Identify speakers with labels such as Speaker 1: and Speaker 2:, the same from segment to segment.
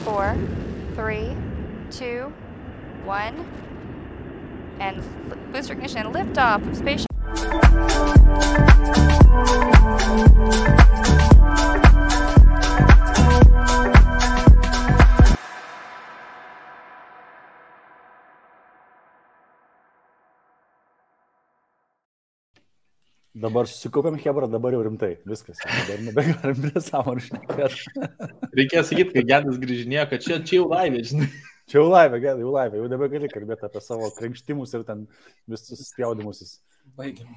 Speaker 1: 4, 3, 2, 1, and booster ignition, liftoff of Space.
Speaker 2: Dabar susikaupiam Hebra, dabar jau rimtai. Viskas. Dabar nebegalim prie sąmonų šnekėti.
Speaker 3: Reikėjo sakyti, kai Gedas grįžinėjo, kad čia jau laivė, žinai.
Speaker 2: Čia jau laivė, Gedai, jau laivė. Jau nebegali kalbėti apie savo krenkštimus ir ten visus spjaudimusis.
Speaker 4: Baigiam.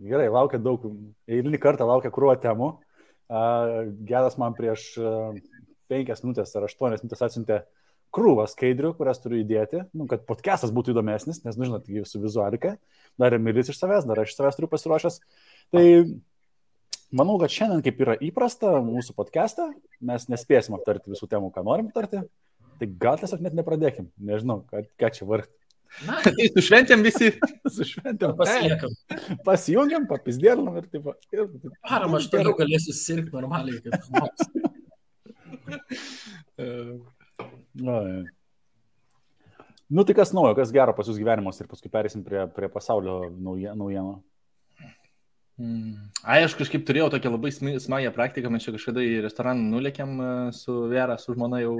Speaker 2: Gerai, laukia daug. Eilinį kartą laukia krūva temų. Gedas man prieš 5 minutės ar 8 minutės atsiuntė krūvą skaidrių, kurias turiu įdėti, kad podcastas būtų įdomesnis, nes, žinot, su vizualika, dar Emilis iš savęs, dar aš iš savęs turiu pasiruošęs. Tai manau, kad šiandien, kaip yra įprasta mūsų podcastą, mes nespėsim aptarti visų temų, ką norim aptarti, tai gal tiesiog net nepradėkim, nežinau, ką čia vargti.
Speaker 3: Na, tai sušventėm visi.
Speaker 2: Sušventėm.
Speaker 4: Pasijungiam,
Speaker 2: papizdėlinam ir taip.
Speaker 4: Param, aš toliau galėsiu sirgti normaliai, kaip žmogus.
Speaker 2: Nu tai kas naujo, kas gero pas jūs gyvenimas ir paskui perėsim prie pasaulio naujienų.
Speaker 3: Aš kažkaip turėjau tokią labai smagią praktiką, mes čia kažkada į restoraną nulėkėm su Vera, su žmona jau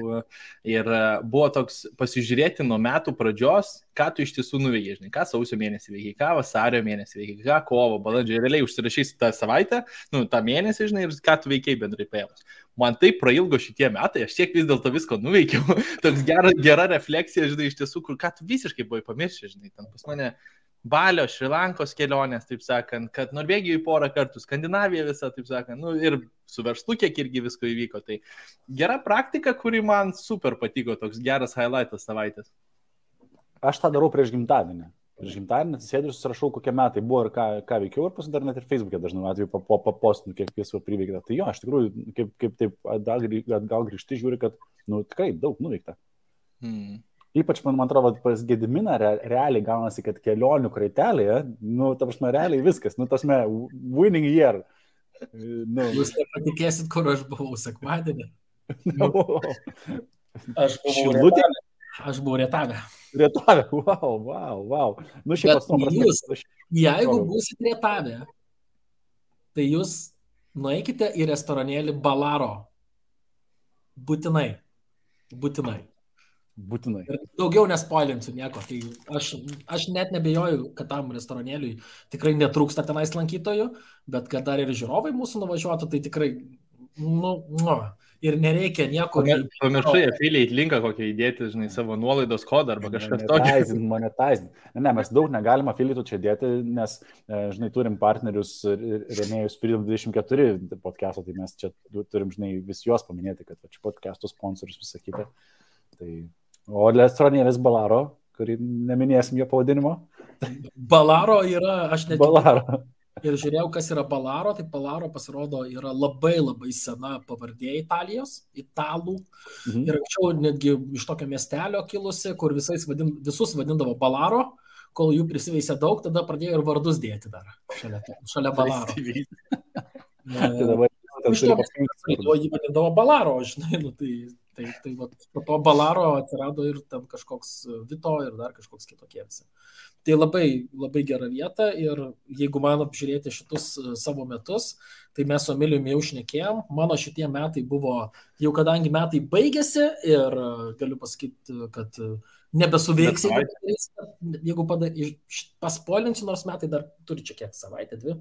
Speaker 3: ir buvo toks pasižiūrėti nuo metų pradžios, ką tu iš tiesų nuveikei, žinai, ką sausio mėnesį veikiai, ką vasario mėnesį veikiai, ką kovo, balandžio, realiai užsirašysi tą savaitę, tą mėnesį, žinai, ir ką tu veikiai bendrai paėmus. Man taip prailgo šitie metai, aš tiek vis dėlto visko nuveikiau, toks gera refleksija, žinai, iš tiesų, kur ką tu visiškai buvai pamiršę, žinai, ten pas mane Balio, Šrilankos kelionės, taip sakant, kad Norvegijoje 4 kartų, Skandinavija visą, taip sakant, ir su verslu kiek irgi visko įvyko. Tai gera praktika, kuri man super patiko, toks geras highlightas savaitės.
Speaker 2: Aš tą darau prieš gimtadienį. Prieš gimtadienį atsisėdžiu ir susirašau, kokie metai buvo ir ką veikiau, ir paskui dar net ir Facebook'e dažnai atveju papostinu, kiek visko priveikta. Tai jo, aš tikrųjų, kaip taip gal grįžti, žiūri, kad, tikrai daug nuveikta. Ypač, man atrodo, pas Gediminą realiai gaunasi, kad kelionių kraitelėje, ta prasme, realiai viskas, ta prasme, winning year.
Speaker 4: Jūs nepatikėsit, kur aš buvau sekmadienį. Aš buvau Rietave.
Speaker 2: Rietave, wow.
Speaker 4: Jeigu būsit Rietave, tai jūs nueikite į restoranėlį Balaro. Būtinai. Ir daugiau nespoilinsiu nieko. Tai aš net nebejoju, kad tam restoranėliui tikrai netrūksta tenais lankytojų, bet kad dar ir žiūrovai mūsų nuvažiuotų, tai tikrai ir nereikia nieko.
Speaker 3: Pamiršai affiliate linką kokią įdėti, žinai, savo nuolaidos kodą arba kažkas tokio.
Speaker 2: Monetizing. Ne, mes daug negalim affiliate čia dėti, nes, žinai, turim partnerius rėmėjus Freedom 24 podcast'o, tai mes čia turim, žinai, vis juos paminėti, kad čia podcast'o sponsorius visą kitą. O restoranėlis Balaro, kurį neminėsim jo pavadinimo.
Speaker 4: Balaro yra, aš net
Speaker 2: Balaro.
Speaker 4: Ir žiūrėjau, kas yra Balaro, tai Balaro pasirodo yra labai sena pavardė Italijos, italų. Ir anksčiau netgi iš tokio miestelio kilusi, kur visus vadindavo Balaro, kol jų prisiveisė daug, tada pradėjo ir vardus dėti dar šalia Balaro. Iš to jį vadindavo Balaro, žinai, tai po to Balaro atsirado ir ten kažkoks Vito ir dar kažkoks kitokie visi. Tai labai gera vieta ir jeigu man apžiūrėti šitus savo metus, tai mes su Emiliumi jau šnekėjom. Mano šitie metai buvo, jau kadangi metai baigėsi ir galiu pasakyti, kad nebesuveiksi, jeigu paspoilinsiu, nors metai dar turi čia kiek savaitę, 2.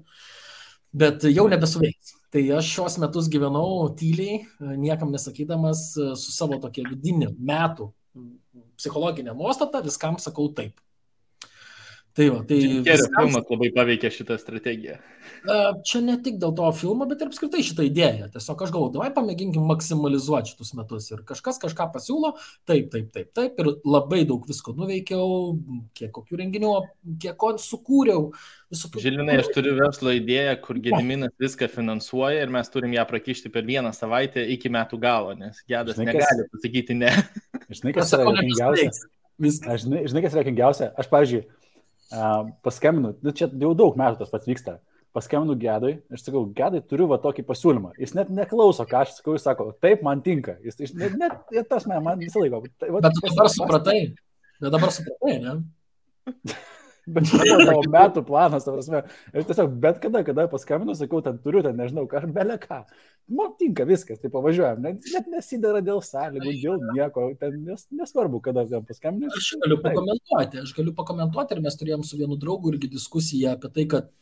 Speaker 4: Bet jau nebesuveiks. Tai aš šios metus gyvenau tyliai, niekam nesakydamas, su savo tokia vidinė metų psichologinė nuostata, viskam sakau taip. Tai
Speaker 3: filmas labai paveikė šitą strategiją.
Speaker 4: Čia ne tik dėl to filmo, bet ir apskritai šitą idėją. Tiesiog aš galvoju, davai pamėginkim maksimalizuoti šitus metus. Ir kažkas kažką pasiūlo, taip. Ir labai daug visko nuveikiau, kiek kokių renginių, kiek ko sukūriau.
Speaker 3: Žilinai, aš turiu verslo idėją, kur Gediminas viską finansuoja ir mes turim ją prakišti per 1 savaitę iki metų galo, nes Gedas negali pasakyti ne.
Speaker 2: Žinai, kas yra juokingiausia? Aš, pavyzdžiui, paskambinu, čia jau daug metų tas pats vyksta. paskambinu Gedui, aš sakau, Gedai, turiu va tokį pasiūlymą. Jis net neklauso, ką aš sakau, jis sako, taip, man tinka. Jis net tas man visą laiką.
Speaker 4: Bet tu dabar supratai. Ne?
Speaker 2: Bet čia buvo tavo metų planas, ta prasme. Ir tiesiog bet kada paskambinu, sakau, ten turiu, ten nežinau, ką, belė ką. Man tinka viskas, tai pavažiuojam. Net nesidara dėl sąlygų, dėl nieko, ten nesvarbu, kada ten paskambinu.
Speaker 4: Aš galiu pakomentuoti ir mes turėjom su vienu draugu irgi diskusiją apie tai, kad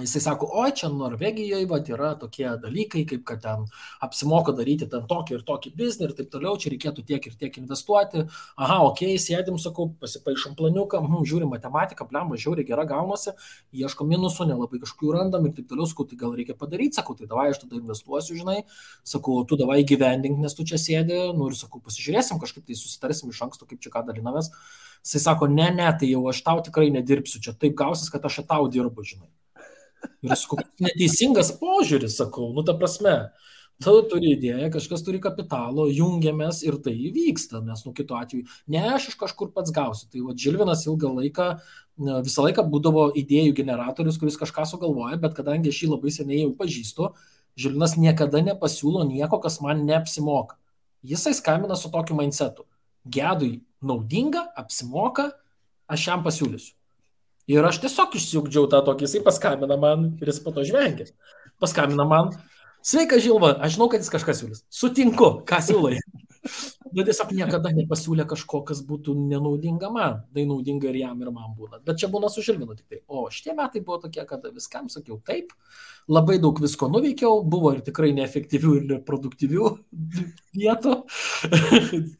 Speaker 4: jisai sako, o čia Norvegijoje yra tokie dalykai, kaip kad ten apsimoka daryti ten tokį ir tokį biznį ir taip toliau, čia reikėtų tiek ir tiek investuoti. Aha, okei, sėdim, sakau, pasipaišom planiuką, žiūrim matematiką, blemba, žiauriai gera gaunasi, ieškom minusų, nelabai kažkokių randam ir taip toliau, sakau, tai gal reikia padaryti, sakau, tai davai aš tada investuosiu, žinai, sakau, tu davai gyvendink, nes tu čia sėdi, ir sakau, pasižiūrėsim, kažkaip tai susitarsim iš anksto, kaip čia ką dalinamės. Jisai sako, ne, tai jau aš tau tikrai nedirbsiu, čia taip gausis, kad aš tau dirbu, žinai. Ir sakau, neteisingas požiūris, sakau, ta prasme, tu turi idėją, kažkas turi kapitalo, jungiamės ir tai įvyksta, nes kitu atveju, ne aš iš kažkur pats gausiu. Tai Žilvinas visą laiką būdavo idėjų generatorius, kuris kažką sugalvoja, bet kadangi aš jį labai seniai jau pažįstu, Žilvinas niekada nepasiūlo nieko, kas man neapsimoka. Jisai skambina su tokiu mindsetu. Gedui naudinga, apsimoka, aš jam pasiūlysiu. Ir aš tiesiog išsiugdžiau tą tokį, jisai paskambina man ir jis po to žvengia. Paskambina man, sveika Žilva, aš žinau, kad jis kažką siūlys. Sutinku, ką siūlai. Bet tiesiog niekada nepasiūlė kažko, kas būtų nenaudinga man. Tai naudinga ir jam, ir man būna. Bet čia būna su Žilvinu tik tai. O šitie metai buvo tokie, kad viskam sakiau taip. Labai daug visko nuveikiau, buvo ir tikrai neefektyvių ir neproduktyvių vietų,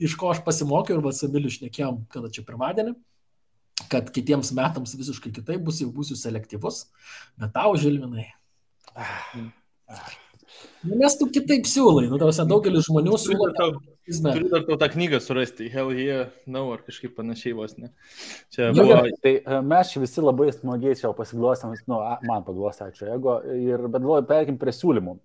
Speaker 4: iš ko aš pasimokiau ir su Emiliu šnekėjom, kada čia pirmadienį, kad kitiems metams visiškai kitaip bus, jau būsiu selektyvus, bet tau, Žilvinai. Nes tu kitaip siūlai, daugelis žmonių siūlo.
Speaker 3: Turiu dar tau tą knygą surasti, Hell Yeah, No, ar kažkaip panašiai vos, ne? Čia
Speaker 2: buvo... Tai mes čia visi labai smagiai čia pasiglostėm, man paglostė, ačiū, bet galvoju, perėkim prie siūlymų,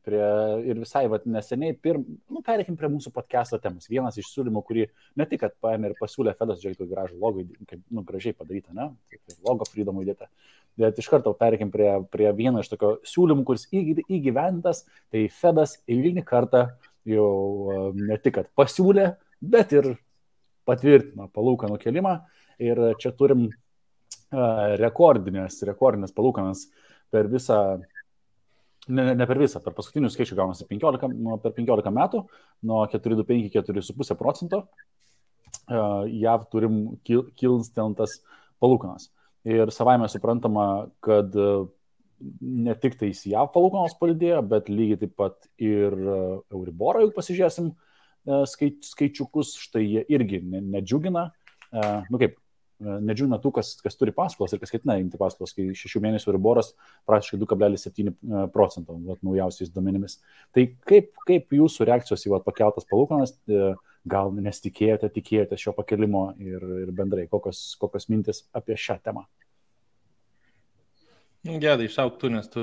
Speaker 2: ir visai neseniai, perėkim prie mūsų podcast'o temos. Vienas iš siūlymų, kurį ne tik, kad paėmė ir pasiūlė Fedas, žiūrėktų gražų logo, kaip gražiai padaryta, ne? Logo Freedom įdėta. Bet iš karto perėkim prie vieno iš tokio siūlymų, kuris įgyventas, tai Fedas eilinį kartą jau ne tik, kad pasiūlė, bet ir patvirtino palūkanų kelimą. Ir čia turim rekordinės palūkanas per visą, ne per visą, per paskutinių skaičių gaunasi per 15 metų, nuo 4,25–4,5%. JAV turim kilsteltas palūkanas. Ir savaime suprantama, kad ne tik tai JAV palūkanos padidėjo, bet lygiai taip pat ir Euriborą, jeigu pasižiūrėsim skaičiukus, štai jie irgi nedžiugina. Nedžiugina tų, kas turi paskolas ir kas ketina imti paskolas, kai 6 mėnesių Euriboras praktiškai 2,7% naujausiais duomenimis. Tai kaip jūsų reakcijos į pakeltas palūkanas, gal nesitikėjote šio pakelimo ir bendrai, kokios mintis apie šią temą?
Speaker 3: Gedai, išauk tu, nes tu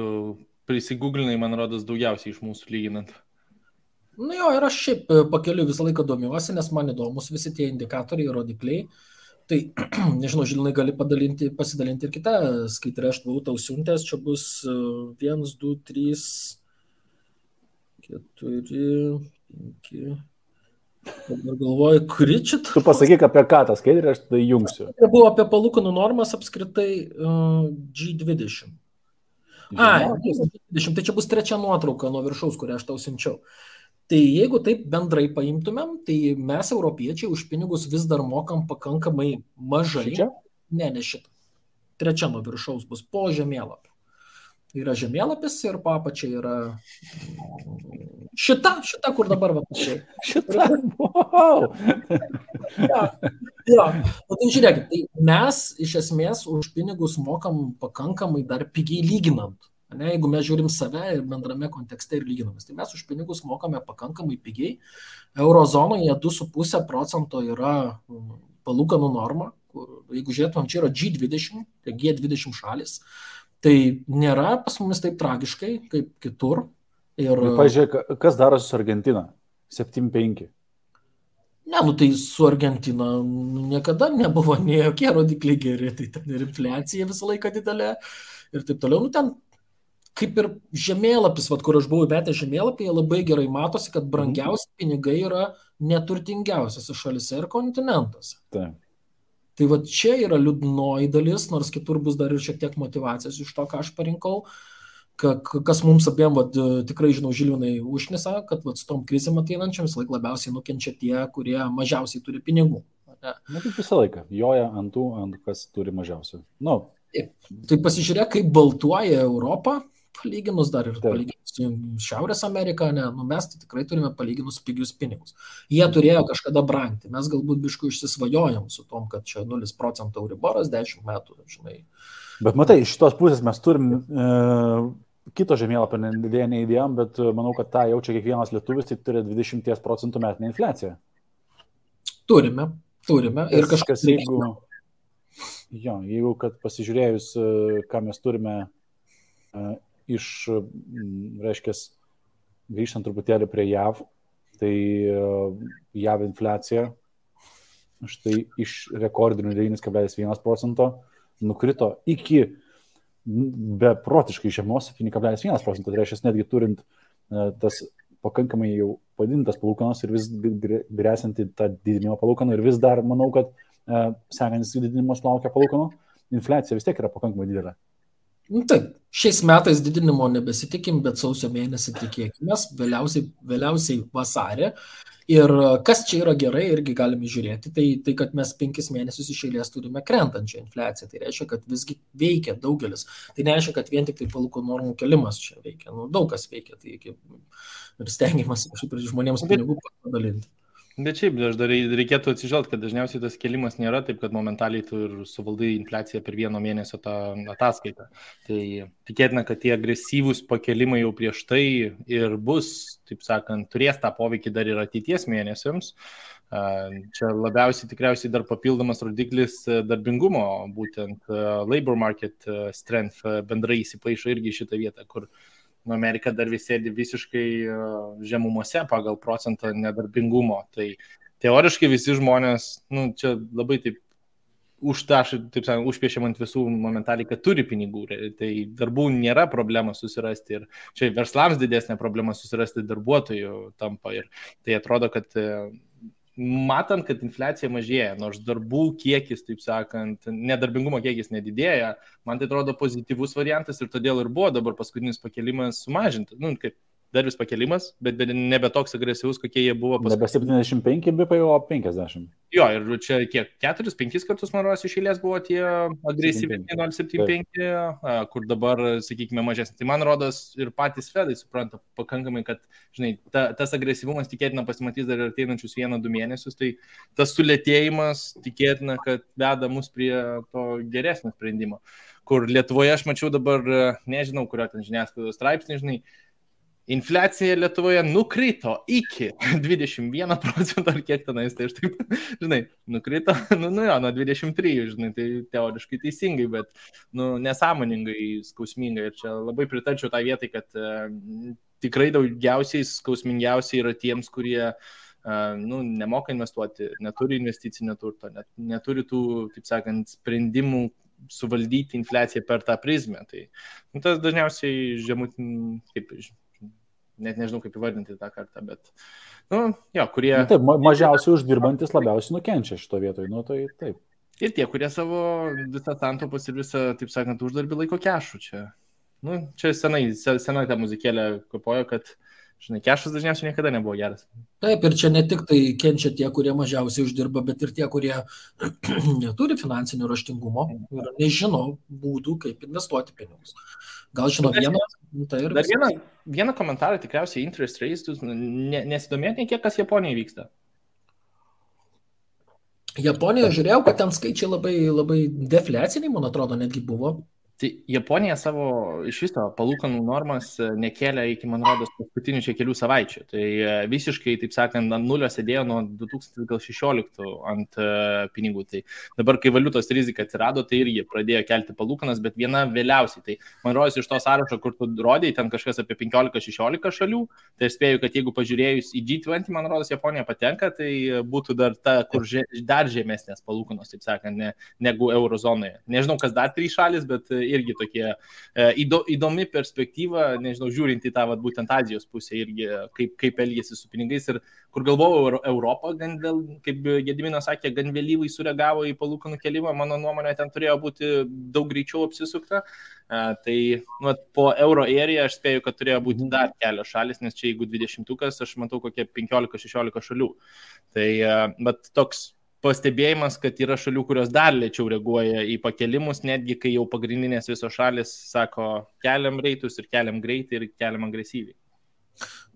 Speaker 3: prisigūglinai, man rodos, daugiausiai iš mūsų lyginant.
Speaker 4: Ir aš šiaip pakeliu visą laiką domiuosi, nes man įdomus visi tie indikatoriai, rodikliai. Tai, nežinau, Žilinai gali pasidalinti ir kitą skaitrę, aš buvau tau siuntęs, čia bus 1, 2, 3, 4, 5... Dabar galvoju, kuri čia...
Speaker 2: Tu pasakyk apie ką tą skaidrę, aš tai jungsiu.
Speaker 4: Tai buvo apie palūkanų normas apskritai G20. G20, tai čia bus trečia nuotrauka nuo viršaus, kurią aš tau siunčiau. Tai jeigu taip bendrai paimtumėm, tai mes, europiečiai, už pinigus vis dar mokam pakankamai mažai.
Speaker 2: Šičia?
Speaker 4: Ne šitą. Trečia nuo viršaus bus po žemėlapio. Yra žemėlapis ir po apačiai yra šita, kur dabar pačiai.
Speaker 2: Šita, wow!
Speaker 4: Tai žiūrėkit, tai mes iš esmės už pinigus mokam pakankamai dar pigiai lyginant. Ne, jeigu mes žiūrim save ir bendrame kontekste ir lyginamės, tai mes už pinigus mokame pakankamai pigiai. Eurozonoje 2,5% yra palūkanų norma. Jeigu žiūrėtumėm, čia yra G20, tai G20 šalis. Tai nėra pas mumis taip tragiškai, kaip kitur.
Speaker 2: Ir pažiūrėk, kas darosi su Argentina? 7,5.
Speaker 4: Ne, nu tai su Argentina niekada nebuvo nei jokie rodikliai geri, tai ten ir infliacija visą laiką didelė ir taip toliau. Nu ten kaip ir žemėlapis, vat, kur aš buvau įmetęs žemėlapyje, labai gerai matosi, kad brangiausi pinigai yra neturtingiausiose šalise ir kontinentuose.
Speaker 2: Taip.
Speaker 4: Tai va čia yra liūdnoji dalis, nors kitur bus dar ir šiek tiek motivacijos iš to, ką aš parinkau. Kas mums abiem, tikrai žinau, Žilvinai užnisa, kad su tom krizėm ateinančiam vis laik labiausiai nukenčia tie, kurie mažiausiai turi pinigų.
Speaker 2: Na, kaip visą laiką, joja ant kas turi mažiausiai. Nu.
Speaker 4: Tai pasižiūrėk, kaip baltuoja Europą, palyginus dar ir palyginus su Šiaurės Amerika, ne, nu mes tai tikrai turime palyginus pigius pinigus. Jie turėjo kažkada brangti, mes galbūt biškų išsisvajojom su tom, kad čia 0% Euriboras 10 metų, žinai.
Speaker 2: Bet matai, iš šitos pusės mes turim kito žemėlapio neįdėjom, bet manau, kad tą jaučia kiekvienas lietuvis, tai turi 20% metinę infliaciją.
Speaker 4: Turime. Ir kažkas
Speaker 2: jeigu kad pasižiūrėjus, ką mes turime reiškias, grįžtant truputėlį prie JAV, tai JAV infliacija štai iš rekordinių 9,1% nukrito iki beprotiškai žemos 7,1%, tai reiškia, netgi turint tas pakankamai jau padidintas palūkanos ir vis grėsinti tą didinimo palūkanų ir vis dar, manau, kad sekantis didinimas laukia palūkanų, infliacija vis tiek yra pakankamai didelė.
Speaker 4: Taip, šiais metais didinimo nebesitikim, bet sausio mėnesį tikėkime, vėliausiai vasarį. Ir kas čia yra gerai, irgi galime žiūrėti, tai kad mes 5 mėnesius iš eilės turime krentančią infliaciją. Tai reiškia, kad visgi veikia daugelis. Tai nereiškia, kad vien tik tai palūkanų normų kelimas čia veikia. Nu, daug kas veikia. Tai ir stengiamas žmonėms pinigų padalinti.
Speaker 3: Bet šiaip, dar reikėtų atsižvelgti, kad dažniausiai tas kelimas nėra taip, kad momentaliai tu ir suvaldai infliaciją per 1 mėnesio tą ataskaitą. Tai tikėtina, kad tie agresyvūs pakelimai jau prieš tai ir bus, taip sakant, turės tą poveikį dar ir ateities mėnesiams. Čia labiausiai tikriausiai dar papildomas rodiklis darbingumo, būtent labor market strength bendrai įsipaišo irgi šitą vietą, kur Amerika dar sėdi visiškai žemumose pagal procentą nedarbingumo. Tai teoriškai visi žmonės, čia labai taip užpiešiam ant visų momentaliai, kad turi pinigų. Tai darbų nėra problema susirasti ir čia verslams didesnė problema susirasti darbuotojų tampa. Ir tai atrodo, kad matant, kad infliacija mažėja, nors darbų kiekis, taip sakant, nedarbingumo kiekis nedidėja, man tai atrodo pozityvus variantas ir todėl ir buvo dabar paskutinis pakelimas sumažintas. Kaip dar vis pakelimas, bet nebe toks agresyvus, kokie jie buvo paskutinis.
Speaker 2: Nebe 75 BP, o 50.
Speaker 3: Jo, ir čia kiek, 4-5 kartus, man rodos, iš eilės buvo tie agresyviai 0,75, kur dabar, sakykime, mažesnis. Tai man rodos ir patys Fedai supranta pakankamai, kad, žinai, tas agresyvumas tikėtina pasimatys dar ir ateinančius 1-2 mėnesius, tai tas sulėtėjimas tikėtina, kad veda mus prie to geresnio sprendimo. Kur Lietuvoje aš mačiau dabar, nežinau, kurio ten žiniasklaidos straipsnį, žinai, infliacija Lietuvoje nukrito iki 21% ar kiek tenais, tai aš taip, žinai, nukrito, nuo 23, žinai, tai teoriškai teisingai, bet, nesąmoningai, skausmingai. Ir čia labai pritarčiau tą vietai, kad tikrai daugiausiai skausmingiausiai yra tiems, kurie, nemoka investuoti, neturi investicinio turto, neturi tų, taip sakant, sprendimų suvaldyti infliaciją per tą prizmę. Tai tas dažniausiai net nežinau, kaip įvardinti tą kartą, bet, kurie...
Speaker 2: Taip, mažiausiai uždirbantis labiausiai nukenčia šito vietoj, tai taip.
Speaker 3: Ir tie, kurie savo visą santaupas ir visą, taip sakant, uždarbį laiko kešų čia. Čia senai tą muzikėlę kopojo, kad, žinai, kešas dažniausiai niekada nebuvo geras.
Speaker 4: Taip, ir čia ne tik tai kenčia tie, kurie mažiausiai uždirba, bet ir tie, kurie neturi finansinio raštingumo ir nežino būdų, kaip investuoti pinigus. Gal žino vieną, tai ir...
Speaker 3: Dar vieną komentarą tikriausiai interest rates, nesidomėti kiek kas Japonijoje vyksta.
Speaker 4: Japonijoje žiūrėjau, kad ten skaičiai labai, labai defliaciniai, man atrodo, netgi buvo.
Speaker 3: Tai Japonija savo iš viso palūkanų normas nekėlė iki, man rodos, paskutinių čia kelių savaičių. Tai visiškai, taip sakant, ant nulio sėdėjo nuo 2016 ant pinigų. Tai dabar, kai valiutos rizika atsirado, tai ir jie pradėjo kelti palūkanas, bet viena vėliausiai. Tai man rodos iš to sąrašo, kur tu rodėjai, ten kažkas apie 15-16 šalių. Tai aš spėju, kad jeigu pažiūrėjus į G20, man rodos, Japonija patenka, tai būtų dar ta, kur dar žemesnės palūkanos, taip sakant, negu eurozonoje. Nežinau, kas dar 3 šalis, bet irgi tokie įdomi perspektyva, nežinau, žiūrint į tą būtent Azijos pusę irgi, kaip elgėsi su pinigais ir kur galvojau Europą, kaip Gediminas sakė, gan vėlyvai sureagavo į palūkanų kelimą, mano nuomonė ten turėjo būti daug greičiau apsisukta. Tai po euro area aš spėju, kad turėjo būti dar kelios šalis, nes čia jeigu 20-ukas, aš matau kokie 15-16 šalių. Tai bet toks pastebėjimas, kad yra šalių, kurios dar lėčiau reaguoja į pakelimus, netgi kai jau pagrindinės visos šalis sako, keliam reitus ir keliam greitai ir keliam agresyviai.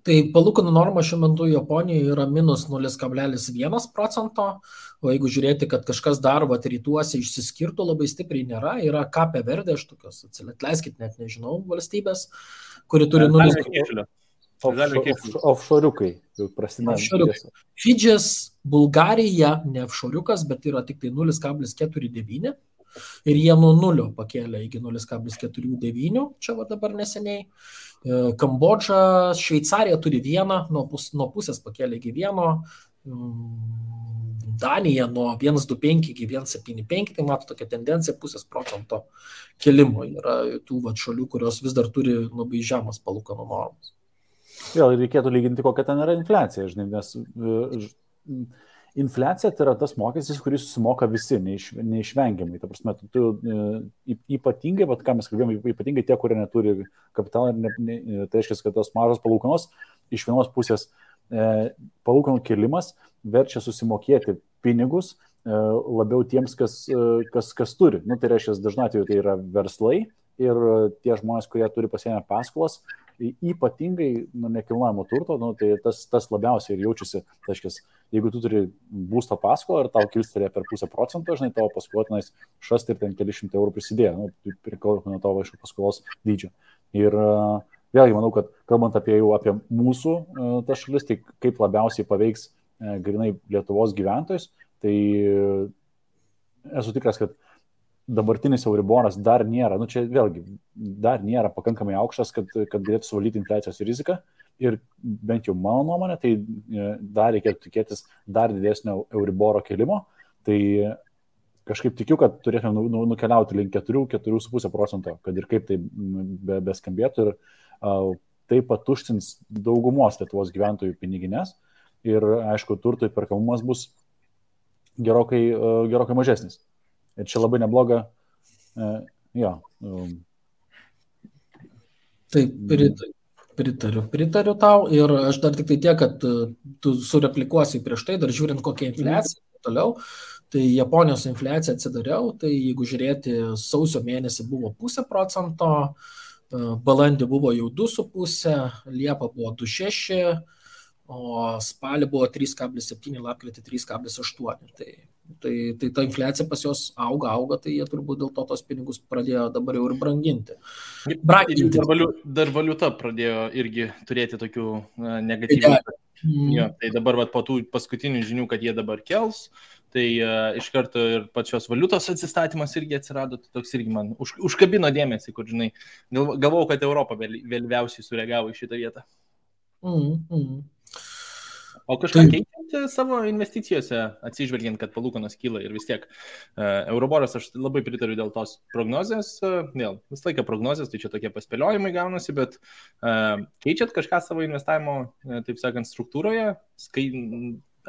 Speaker 4: Tai palūkanų norma šiuo metu Japonijoje yra minus 0,1%, o jeigu žiūrėti, kad kažkas dar rytuose išsiskirtų labai stipriai nėra, yra Cape Verde, aš tokios, atleiskit, net nežinau, valstybės, kuri turi 0,1%.
Speaker 2: Offshore'ukai jau prasideda.
Speaker 4: Fidžis, Bulgarija, ne offshore'ukas, bet yra tik tai 0,49 ir jie nuo 0 pakėlė iki 0,49, čia dabar neseniai. Kambodža, Šveicarija turi 1, nuo pusės pakėlė iki 1, Danija nuo 1,25 iki 1,75, tai mato tokia tendencija 0,5% kelimo. Yra tų šalių, kurios vis dar turi labai žemas palūkanų normas.
Speaker 2: Vėl reikėtų lyginti, kokia ten yra infliacija, žinai, nes infliacija tai yra tas mokestis, kuris susimoka visi, neišvengiamai. Ta prasme, tu ypatingai, ką mes kalbėjome, ypatingai tie, kurie neturi kapitalą, tai reiškia, kad tos mažos palūkanos iš vienos pusės palūkanų kėlimas verčia susimokėti pinigus labiau tiems, kas turi. Tai reiškia, dažnai atveju tai yra verslai ir tie žmonės, kurie turi pasiėmę paskolas, ypatingai nekilnojamo turto, tai tas labiausiai ir jaučiasi. Tai reiškia, jeigu tu turi būsto paskolą ir tau kilstelė per 0,5%, žinai, tavo paskolotinais šast ir ten keli šimtai eurų prisidėjo, priklausomai nuo tavo iš paskolos dydžio. Ir vėlgi manau, kad kalbant apie mūsų tas šalis, tai kaip labiausiai paveiks grinai Lietuvos gyventojus, tai esu tikras, kad dabartinis Euriboras dar nėra, čia vėlgi, dar nėra pakankamai aukštas, kad galėtų suvaldyti infliacijos riziką ir bent jau mano nuomonė, tai dar reikėtų tikėtis dar didesnio Euriboro kelimo, tai kažkaip tikiu, kad turėtume nukeliauti link 4-4,5%, kad ir kaip tai beskambėtų ir tai patuštins daugumos Lietuvos gyventojų piniginės ir, aišku, turto įperkamumas bus gerokai mažesnis. Ir čia labai nebloga,
Speaker 4: Taip, pritariu tau ir aš dar tik tai tiek, kad tu sureplikuosi prieš tai, dar žiūrint kokia infliacija toliau, tai Japonijos infliacija atsidariau, tai jeigu žiūrėti, sausio mėnesį buvo 0,5%, balandį buvo jau 2,5%, Liepa buvo 2,6%, o spalį buvo 3,7, lapkritį 3,8. Tai ta infliacija pas jos auga, tai jie turbūt dėl to tos pinigus pradėjo dabar jau ir branginti.
Speaker 3: Dar valiuta pradėjo irgi turėti tokių negatyvių. Tai dabar po tų paskutinių žinių, kad jie dabar kels, tai iš karto ir pačios valiutos atsistatymas irgi atsirado, tai toks irgi man užkabino dėmesį, kur, žinai, galvojau, kad Europa vėliausiai sureagavo į šitą vietą. O kažką keičiate savo investicijose, atsižvelgiant, kad palūkanos kyla ir vis tiek Euriboras, aš labai pritariu dėl tos prognozės, visą laiką prognozės, tai čia tokie paspėliojimai gaunasi, bet keičiat kažką savo investavimo, taip sakant, struktūroje,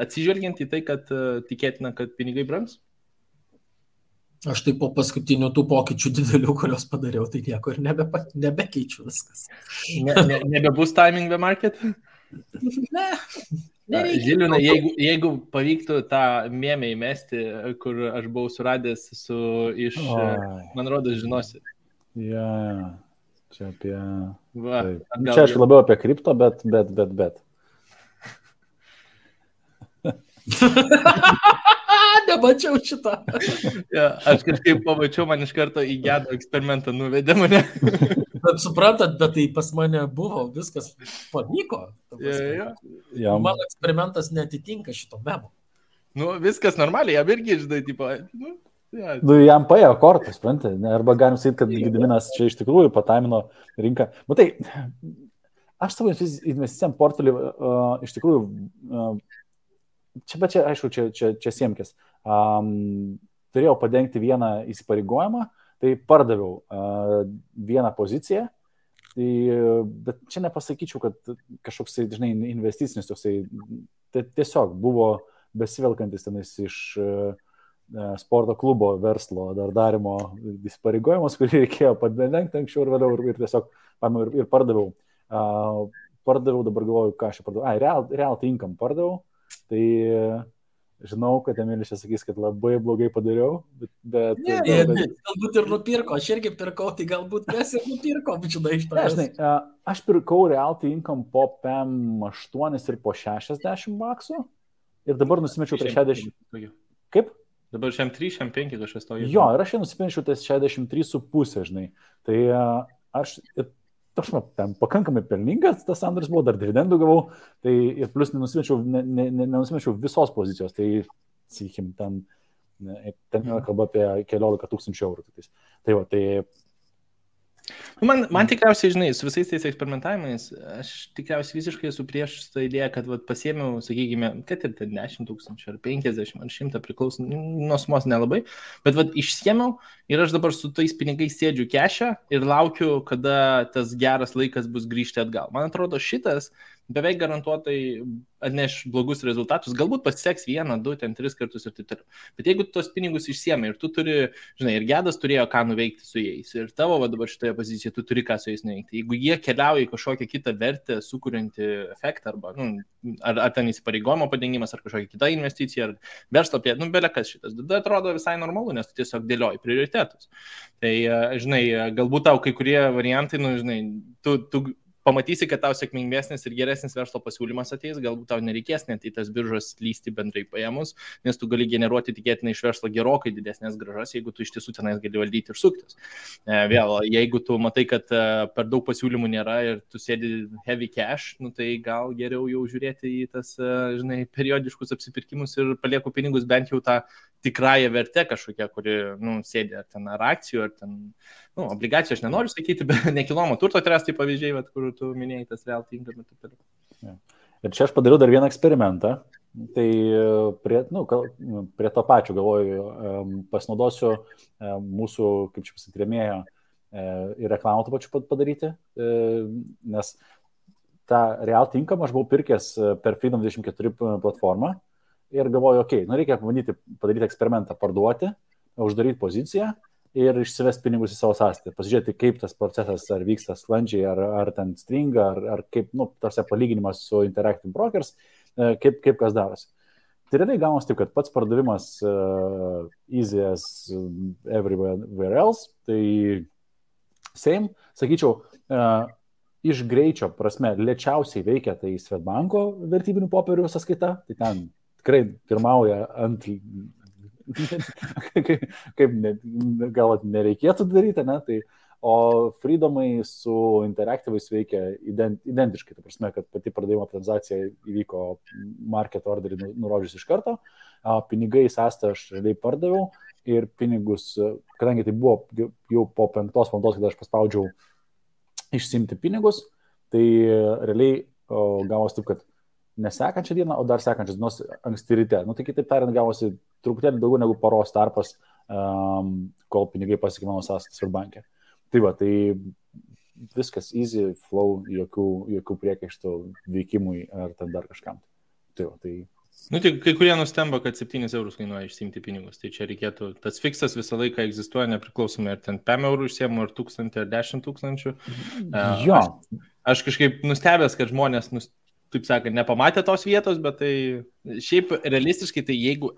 Speaker 3: atsižvelgiant į tai, kad tikėtina, kad pinigai brangs?
Speaker 4: Aš tai po paskutinių tų pokyčių didelių, kurios padariau, tai nieko ir nebekeičiu viskas.
Speaker 3: Nebebus timing the market?
Speaker 4: Ne.
Speaker 3: Žilvinai, jeigu pavyktų tą mėmę įmesti, kur aš buvau suradęs iš, man rodos, žinosi.
Speaker 2: Čia apie... Čia aš labiau apie kripto, bet.
Speaker 4: nemačiau šitą.
Speaker 3: Ja, aš kažkaip pamačiau, man iš karto į gedo eksperimentą nuvedė mane.
Speaker 4: Bet suprantat, bet tai pas mane buvo, viskas pavyko.
Speaker 3: Ja.
Speaker 4: Mano eksperimentas netitinka šito memo.
Speaker 3: Nu, viskas normaliai, jam irgi, žinai, tipo, ja.
Speaker 2: Nu, jam paėjo kortas, suprantate, arba galim sakyti, kad Gediminas čia iš tikrųjų pataimino rinką. Matai, aš savo investicijam portfelį iš tikrųjų, čia, aišku, čia siemkis, turėjau padengti vieną įsipareigojimą, tai pardaviau vieną poziciją, bet čia nepasakyčiau, kad kažkoks, žinai, investicinis toksai, tai tiesiog buvo besivelkantis tenais iš sporto klubo verslo dar darimo įsipareigojimus, kurį reikėjo padengti anksčiau ir vėliau ir tiesiog ir pardaviau. Pardaviau, dabar galvoju, ką aš čia pardaviau. Realty Income pardaviau, tai žinau, kad Emilis čia sakys, kad labai blogai padariau, bet...
Speaker 4: Galbūt ir nupirko, aš irgi pirkau, tai galbūt mes ir nupirkom, žinai, iš to.
Speaker 2: Žinai, aš pirkau Realty Income po PM8 ir po 60 baksų ir dabar nusimečiau prie 60... Kaip?
Speaker 3: Dabar šiam 3, šiam 5 kažkas to.
Speaker 2: Jo, ir aš nusimečiau ties 63,5, žinai. Tai aš ten pakankamai pelningas, tas sandoris buvo, dar dividendų gavau, tai ir plus nenusimečiau visos pozicijos, tai, sakykim, ten kalba apie 14 000 eurų. Tai va, tai...
Speaker 3: Man tikriausiai, žinai, su visais tais eksperimentavimais, aš tikriausiai visiškai esu prieš tą idėją, kad pasiėmiau, sakykime, kad ir 10 000 ar 50 ar 100 priklauso, nuo sumos nelabai, bet išsiėmiau ir aš dabar su tais pinigais sėdžiu kešę ir laukiu, kada tas geras laikas bus grįžti atgal. Man atrodo, šitas beveik garantuotai atneš blogus rezultatus, galbūt pasiseks 1, 2, 3 kartus ir taip toliau. Bet jeigu tu tos pinigus išsiemi ir tu turi, žinai, ir Gedas turėjo ką nuveikti su jais, ir tavo dabar šitoje pozicijoje tu turi ką su jais nuveikti. Jeigu jie keliauja į kažkokią kitą vertę, sukuriantį efektą, arba, ar ten įsipareigojimo padengimas, ar kažkokia kita investicija, ar verslo plėtra, belekas šitas. Tada atrodo visai normalu, nes tu tiesiog dėlioji prioritetus. Tai, žinai, galbūt tau kai kurie variantai, žinai, tu pamatysi, kad tau sėkmingesnis ir geresnis verslo pasiūlymas ateis, galbūt tau nereikės net į tas biržas lysti bendrai paėmus, nes tu gali generuoti tikėtinai iš verslo gerokai didesnės grąžas, jeigu tu iš tiesų tenais gali valdyti ir suktis. Vėl, jeigu tu matai, kad per daug pasiūlymų nėra ir tu sėdi heavy cash, tai gal geriau jau žiūrėti į tas, žinai, periodiškus apsipirkimus ir palieku pinigus bent jau tą tikrąją vertę kažkokią, kuri, sėdi ar akcijų, ar ten, obligacijų aš nenoriu sakyti, bet nekilnojamo turto tai pavyzdžiai, kur tu minėjai tas Realty Income.
Speaker 2: Ir čia aš padariau dar vieną eksperimentą, tai prie to pačio galvoju, pasinaudosiu mūsų, kaip čia pasakyti, rėmėjo ir reklamą to pačiu padaryti, nes tą Realty Income aš buvau pirkęs per Freedom24 platformą ir galvoju, reikia padaryti eksperimentą, parduoti, uždaryti poziciją ir išsivesti pinigus į savo sąskaitą. Pasižiūrėti, kaip tas procesas ar vyksta sklandžiai, ar ten stringa, ar kaip, tarsi palyginimas su Interactive Brokers, kaip kas darosi. Tai realiai gaunasi taip, kad pats pardavimas easy as everywhere else, tai same, sakyčiau, iš greičio prasme lėčiausiai veikia tai Swedbanko vertybinių popierių sąskaita, tai ten tikrai pirmauja ant... kaip gal nereikėtų daryti, ne? Tai, o Freedomai su Interactive'ais veikia identiškai, tai prasme, kad pati pardavimo transakcija įvyko market orderį nurodžius iš karto, pinigai sąstą aš realiai pardaviau ir pinigus, kadangi tai buvo jau po 5 valandos, kada aš paspaudžiau išsimti pinigus, tai realiai gavosi taip, kad nesekančią dieną, o dar sekančios dienos anksti ryte. Tai kitaip tariant, gavosi truputėlį daugiau negu paros tarpas, kol pinigai pasiekė mano sąskaitas Swedbanke. Tai va, tai viskas easy, flow, jokių priekaištų veikimui ar ten dar kažkam. Tai va, tai...
Speaker 3: Tai kai kurie nustemba, kad 7 eurus kainuoja išsimti pinigus. Tai čia reikėtų, tas fiksas visą laiką egzistuoja nepriklausomai, ar ten 5 eurų išsiemu, ar 1000, ar 10 000.
Speaker 2: Jo.
Speaker 3: Aš kažkaip nustebęs, kad žmonės taip sakant, nepamatė tos vietos, bet tai šiaip realistiškai, tai jeigu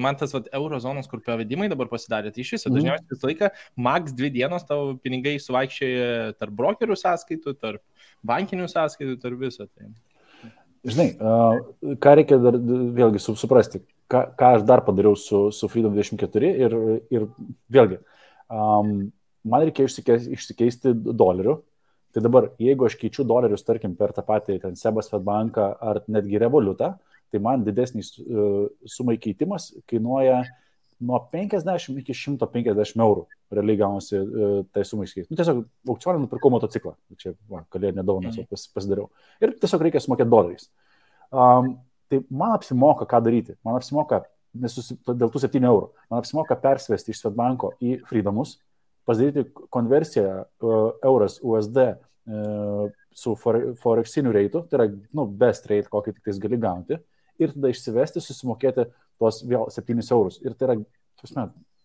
Speaker 3: man tas euro zonos, kur pavedimai dabar pasidarė, tai iš viso dažniausiai visą laiką max 2 dienos tavo pinigai suvaikščioja tarp brokerių sąskaitų, tarp bankinių sąskaitų, tarp viso. Tai.
Speaker 2: Žinai, ką reikia dar vėlgi suprasti, ką aš dar padariau su Freedom 24 ir vėlgi, man reikia išsikeisti dolerių. Tai dabar, jeigu aš keičiu dolerius, tarkim, per tą patį ten Sebas Fedbanką ar netgi Revolutą, tai man didesnis sumai keitimas kainuoja nuo 50 iki 150 eurų. Realiai gaunasi tai sumai keisti. Tiesiog aukcioną nupirkau motociklą. Čia kalėdinę dovaną pasidariau. Ir tiesiog reikia sumokėti doleriais. Tai man apsimoka ką daryti. Man apsimoka, dėl tų 7 eurų, man apsimoka persivesti iš Swedbanko į Freedomus, pasidaryti konversiją euras USD su forexiniu reitu, tai yra best rate, kokį tik tais gali gauti, ir tada išsivesti, susimokėti tuos vėl 7 eurus. Ir tai yra,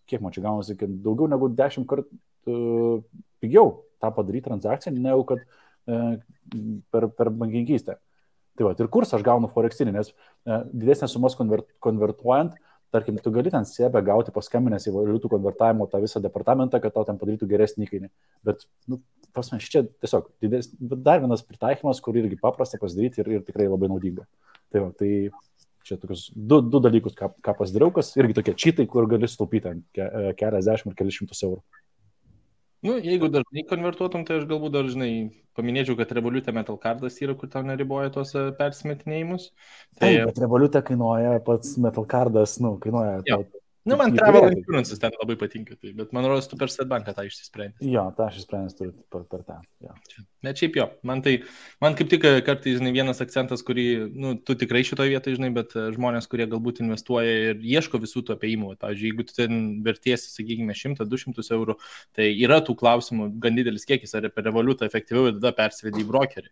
Speaker 2: kiek man čia gaunasi, kad daugiau negu 10 kartų pigiau tą padaryti transakciją, negu kad per bankininkystę. Tai va, ir kursą aš gaunu forexinį, nes didesnės sumas konvertuojant, tarkim, tu gali ten sebę gauti paskambinęs į valiutų konvertavimo tą visą departamentą, kad tau ten padarytų geresnį įkainį. Bet, čia tiesiog dar vienas pritaikymas, kur irgi paprasta pasidaryti ir tikrai labai naudinga. Tai va, tai čia tokius du dalykus, ką pasidariau, kas irgi tokie čytai, kur gali sutaupyti keliasdešimt ir keliasšimtus eurų.
Speaker 3: Jeigu dažnai konvertuotum, tai aš galbūt dažnai paminėčiau, kad Revolute Metal Cardas yra, kur tau neriboja tos persimetinėjimus.
Speaker 2: Taip, bet Revolute kainuoja pats Metal Cardas, kainuoja...
Speaker 3: Man Travel Insurances ten labai patinka, tai, bet man rodos, tu per Swedbanką tą išsisprendęs.
Speaker 2: Jo, tą aš išsprendęs turiu per tą. Jo.
Speaker 3: Bet šiaip jo, man kaip tik kartais, vienas akcentas, kurį, tu tikrai šitoje vietoje, bet žmonės, kurie galbūt investuoja ir ieško visų tų apėjimų, pavyzdžiui, jeigu tu ten vertiesi, sakykime, 100-200 eurų, tai yra tų klausimų gan didelis kiekis, ar per Revolutą efektyviau ir tada persivedi į brokerį.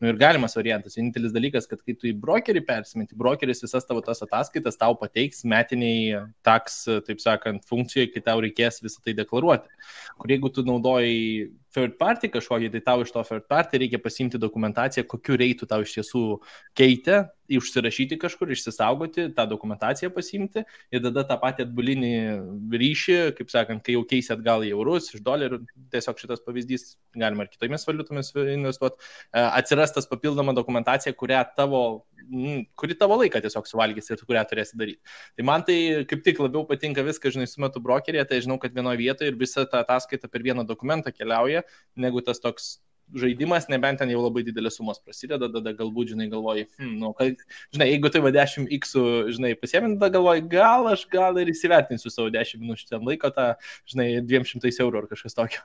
Speaker 3: Ir galimas variantas, vienintelis dalykas, kad kai tu į brokerį persimeti, brokeris visas tavo tas ataskaitas tau pateiks metiniai taks, taip sakant, funkcijai, kai tau reikės visą tai deklaruoti. Kur jeigu tu naudoji third party kažkokį, tai tau iš to third party reikia pasiimti dokumentaciją, kokiu reitu tau iš tiesų keitė, užsirašyti kažkur, išsisaugoti, tą dokumentaciją pasiimti ir tada tą patį atbulinį ryšį, kaip sakant, kai jau keisi atgal į eurus, iš dolerių, tiesiog šitas pavyzdys, galima ir kitomis valiutomis investuoti, atsiras tas papildoma dokumentacija, kuri tavo laiką tiesiog suvalgys ir kurią turėsi daryti. Tai man tai kaip tik labiau patinka viską, sumetu brokerėje, tai žinau, kad vienoje vietoje ir visa ta ataskaita per vieną dokumentą keliauja, negu tas toks žaidimas, nebent ten jau labai didelės sumos prasideda, tada galbūt, galvoji, jeigu tai va 10x, pasiėmint, tada galvoji, gal ir įsivertinsiu savo 10 minučių ten laiko, tą, 200 eurų ar kažkas tokio.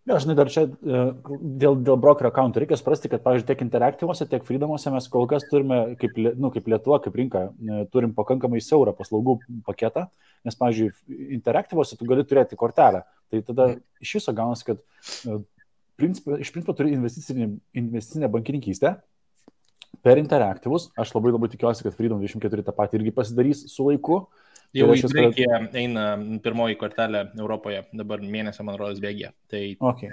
Speaker 2: Ja, dar čia dėl brokerio accountų reikia suprasti, kad, pavyzdžiui, tiek Interactivuose, tiek Freedomuose mes kol kas turime, kaip Lietuva, kaip rinka, turim pakankamai siaurą paslaugų paketą, nes, pavyzdžiui, Interactivuose tu gali turėti kortelę. Tai tada iš viso gaunasi, kad iš principo turi investicinę bankininkystę per Interactivus. Aš labai tikiuosi, kad Freedom 24 tą patį irgi pasidarys su laiku.
Speaker 3: Jau į Graikiją eina pirmoji kortelė Europoje, dabar mėnesio, man rodos, bėgė. Tai...
Speaker 2: Okay.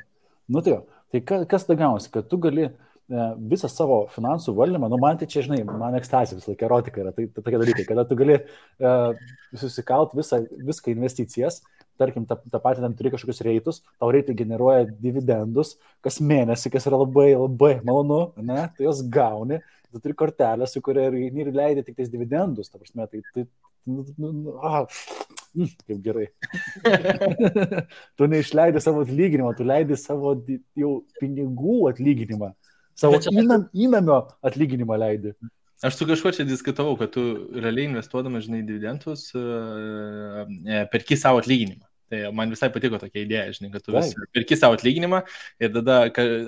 Speaker 2: Tai kas tada gaunasi, kad tu gali visą savo finansų valdymą, man tai čia, man ekstazija visą laiką erotika yra, tai tokie dalykai, kada tu gali susikalt viską investicijas, tarkim, tą patį ten turi kažkokius reitus, tau reitai generuoja dividendus kas mėnesį, kas yra labai malonu, ne? Tu jos gauni, tu turi kortelę, su kuria ir leidai tik tais dividendus, ta prasme, kaip gerai. Tu neišleidai savo atlyginimą, tu leidai savo jau pinigų atlyginimą, savo įnamio atlyginimą leidai.
Speaker 3: Aš su kažkuo čia diskutavau, kad tu realiai investuodamas, dividendus, perki savo atlyginimą. Tai man visai patiko tokia idėja, kad tu perki savo atlyginimą ir tada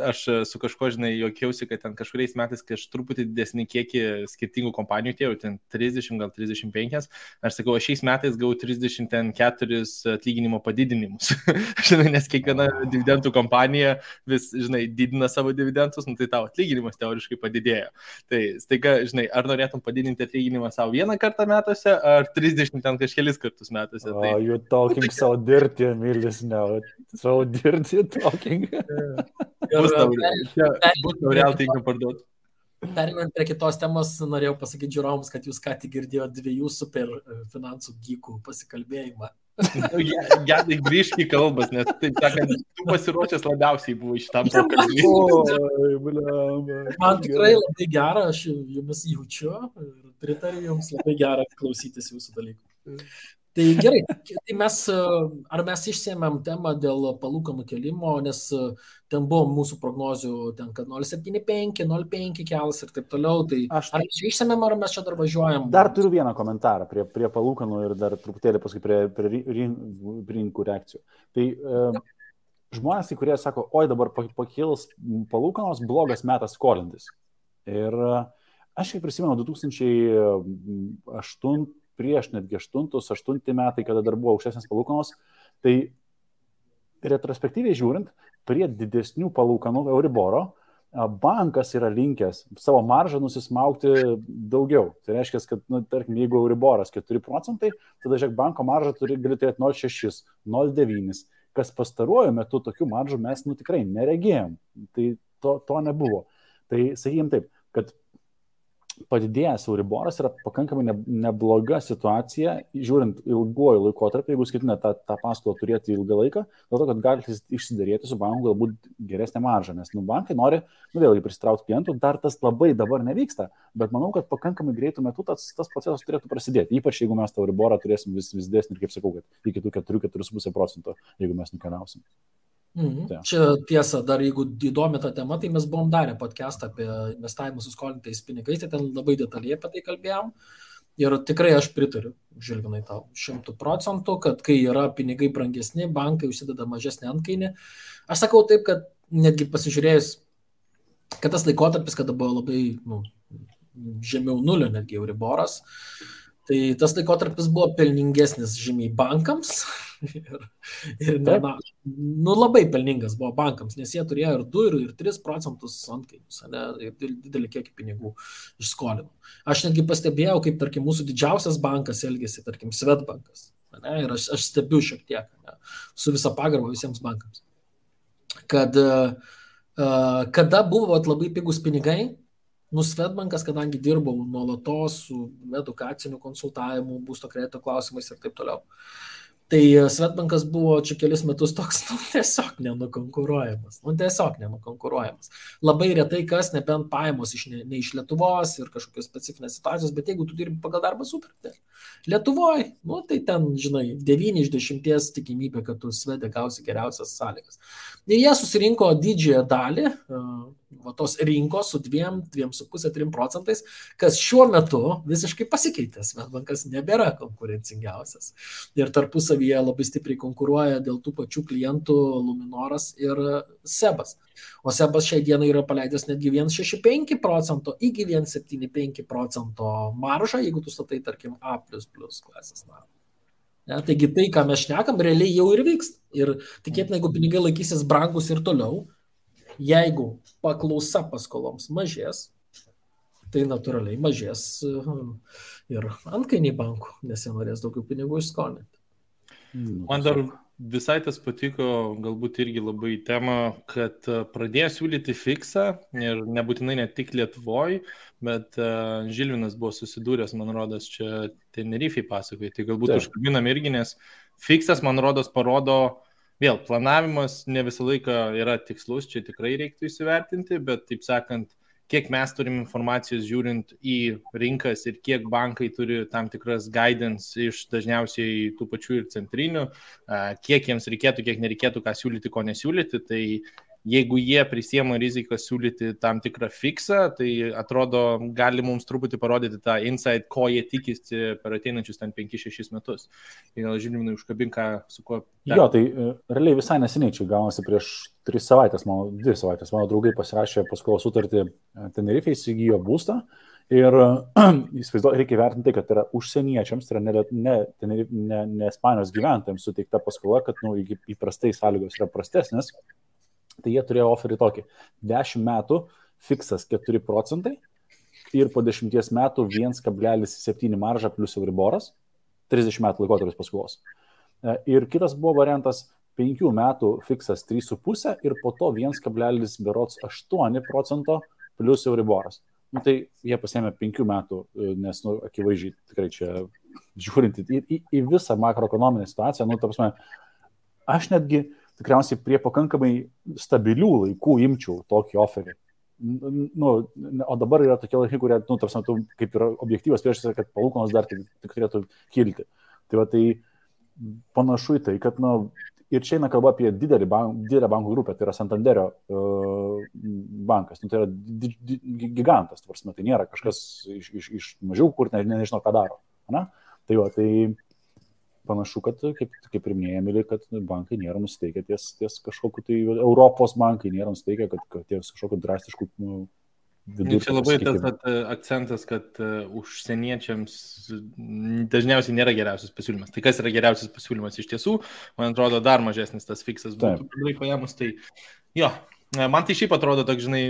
Speaker 3: aš su kažkuo, juokiausi, kad ten kažkuriais metais, kai aš truputį didesnį kiekį skirtingų kompanijų tėjau, ten 30, gal 35, aš sakau, aš šiais metais gavau 34 atlyginimo padidinimus. Nes kiekviena dividendų kompanija vis, didina savo dividendus, tai tavo atlyginimas teoriškai padidėjo. Tai staiga, ar norėtum padidinti atlyginimą savo vieną kartą metuose, ar 30 ten kažkelis kartus metuose.
Speaker 2: Oh, you're talking so dirty, Emilis, now. So dirty talking.
Speaker 3: Bus tau real tinka parduoti.
Speaker 4: Perinant prie kitos temos, norėjau pasakyti žiūrovams, kad jūs ką tik girdėjote 2 super finansų gykų pasikalbėjimą.
Speaker 3: Gedai grįžk į kalbas, nes taip sakant, tu pasiruošęs labiausiai buvo šitam pokalbiui.
Speaker 2: Oi, blemba.
Speaker 4: Man tikrai labai gera, aš jumis jaučiu ir pritariu jums, labai gera klausytis jūsų dalykų. Tai gerai, tai ar mes išsėmėm temą dėl palūkanų kelimo, nes ten buvo mūsų prognozių, ten, kad 0,75, 0,5 kels ir taip toliau, tai ar mes išsėmėm, ar mes čia dar važiuojam?
Speaker 2: Dar turiu vieną komentarą prie palūkanų ir dar truputėlį paskui prie rinkų reakcijų. Tai žmonės, kurie sako, oi dabar pakils palūkanos, blogas metas skolintis. Ir aš kaip prisimenu 2008 prieš netgi 8 metai, kada dar buvo aukštesnės palūkanos, tai retrospektyviai žiūrint, prie didesnių palūkanų Euriboro, bankas yra linkęs savo maržą nusismaukti daugiau. Tai reiškia, kad, tarkim, jeigu Euriboras 4%, tada žiūrėk, banko maržą gali turėti 0,6, 0,9, kas pastaruoju metu tokių maržų mes tikrai neregėjom. Tai to nebuvo. Tai sakykim taip, kad padidėjęs Euriboras yra pakankamai nebloga situacija, žiūrint ilguoju laikotarpiu, jeigu skaitinę tą paskolą turėti ilgą laiką, dėl to, kad galite išsiderėti su banku galbūt geresnę maržą, nes bankai nori, vėlgi prisitraukti klientų, dar tas labai dabar nevyksta, bet manau, kad pakankamai greitų metų tas procesas turėtų prasidėti, ypač jeigu mes tą Euriborą turėsim vis didesnį ir, kaip sakau, kad iki tų 4,5%, jeigu mes nukeliausim.
Speaker 4: Čia tiesa, dar jeigu įdomi ta tema, tai mes buvom darę podcastą apie investavimą su skolintais pinigais, tai ten labai detaliai apie tai kalbėjom. Ir tikrai aš pritariu, Žilvinai, tau 100%, kad kai yra pinigai brangesni, bankai užsideda mažesnį antkainį. Aš sakau taip, kad netgi pasižiūrėjus, kad tas laikotarpis, kada buvo labai žemiau nulio netgi Euriboras, tai tas laikotarpis buvo pelningesnis žymiai bankams ir labai pelningas buvo bankams, nes jie turėjo ir 2, ir 3% antkainius, ir didelį kiekį pinigų išskolino. Aš netgi pastebėjau, kaip, tarkim, mūsų didžiausias bankas elgėsi, tarkim, Swedbankas. Ir aš stebiu šiek tiek, su visa pagarba visiems bankams. Kad kada buvo labai pigus pinigai, Swedbankas, kadangi dirbau nuolatos su edukaciniu konsultavimu, būsto kredito klausimais ir taip toliau. Tai Swedbankas buvo čia kelis metus toks, tiesiog nenukonkuruojamas. Labai retai kas, nebent pajamos ne iš Lietuvos ir kažkokios specifinės situacijos, bet jeigu tu dirbi pagal darbo sutartį Lietuvoje, tai ten, žinai, 9 iš 10 tikimybė, kad tu Swede gausi geriausias sąlygas. Ir jie susirinko didžiąją dalį tos rinkos su 2,5–3%, kas šiuo metu visiškai pasikeitė. Swedbankas nebėra konkurencingiausias. Ir tarpusavyje labai stipriai konkuruoja dėl tų pačių klientų Luminoras ir Sebas. O Sebas šiai dienai yra paleidęs netgi 1,65% iki 1,75% maržą, jeigu tu statai, tarkim, A++ klasės narą. Taigi tai, ką mes šnekam, realiai jau ir vyksta. Ir tikėtina, jeigu pinigai laikysis brangus ir toliau, jeigu paklausa paskoloms mažės, tai natūraliai mažės ir antkainiai bankų, nes jie norės daugiau pinigų išskolinti.
Speaker 3: Man dar visai tas patiko, galbūt irgi labai tema, kad pradėjo siūlyti fiksą ir nebūtinai ne tik Lietuvoje, bet Žilvinas buvo susidūręs, man rodos, čia Tenerifei pasakoja, tai galbūt užkabinam irgi, nes fiksas, man rodos, parodo, vėl, planavimas ne visą laiką yra tikslus, čia tikrai reiktų įsivertinti, bet taip sakant, kiek mes turim informacijos žiūrint į rinkas ir kiek bankai turi tam tikras guidance iš dažniausiai tų pačių ir centrinių, kiek jiems reikėtų, kiek nereikėtų, ką siūlyti, ko nesiūlyti, tai jeigu jie prisiema riziką siūlyti tam tikrą fiksą, tai atrodo, gali mums truputį parodyti tą insight, ko jie tikisi per ateinančius ten 5-6 metus. Tai gal Žilvinai užkabink, su kuo...
Speaker 2: Jo, tai realiai visai neseniai, čia gaunasi prieš 2 savaitės, mano draugai pasirašė paskolos sutartį Tenerifei, įsigijo būstą ir reikia vertinti, kad yra užsieniečiams, tai yra ne Ispanijos gyventojams suteikta paskola, kad įprastai sąlygos yra prastesnės. Tai jie turėjo oferį tokį 10 metų fiksas 4% ir po 10 metų 1,7 marža plus Euriboras, 30 metų laikotarpis paskolos. Ir kitas buvo variantas 5 metų fiksas 3,5 ir po to 1,8% plus Euriboras. Tai jie pasėmė 5 metų, nes akivaizdžiai tikrai čia žiūrint į visą makroekonominę situaciją, nu, ta prasme, aš netgi tikriausiai prie pakankamai stabilių laikų imčiau tokį oferį. Nu, o dabar yra tokie laikai, kurie, nu, ta prasme, tu kaip yra objektyvas priešas, kad palūkanos dar tik turėtų kilti. Tai va, tai panašu į tai, kad, nu, ir čia eina kalba apie didelę bankų grupę, tai yra Santanderio bankas, nu, tai yra gigantas, ta prasme, tai nėra kažkas iš mažiau, kur nežinau, ką daro. Ne? Tai va, tai panašu, kad, kaip ir minėjami, kad bankai nėra nusiteikę ties kažkokiu, tai Europos bankai nėra nusiteikę, kad ties kažkokiu drastišku vidurkiu.
Speaker 3: Čia labai tas akcentas, kad užsieniečiams dažniausiai nėra geriausias pasiūlymas. Tai kas yra geriausias pasiūlymas iš tiesų, man atrodo, dar mažesnis tas fiksas būtų paėmus. Tai jo, man tai šiaip atrodo, toks, žinai,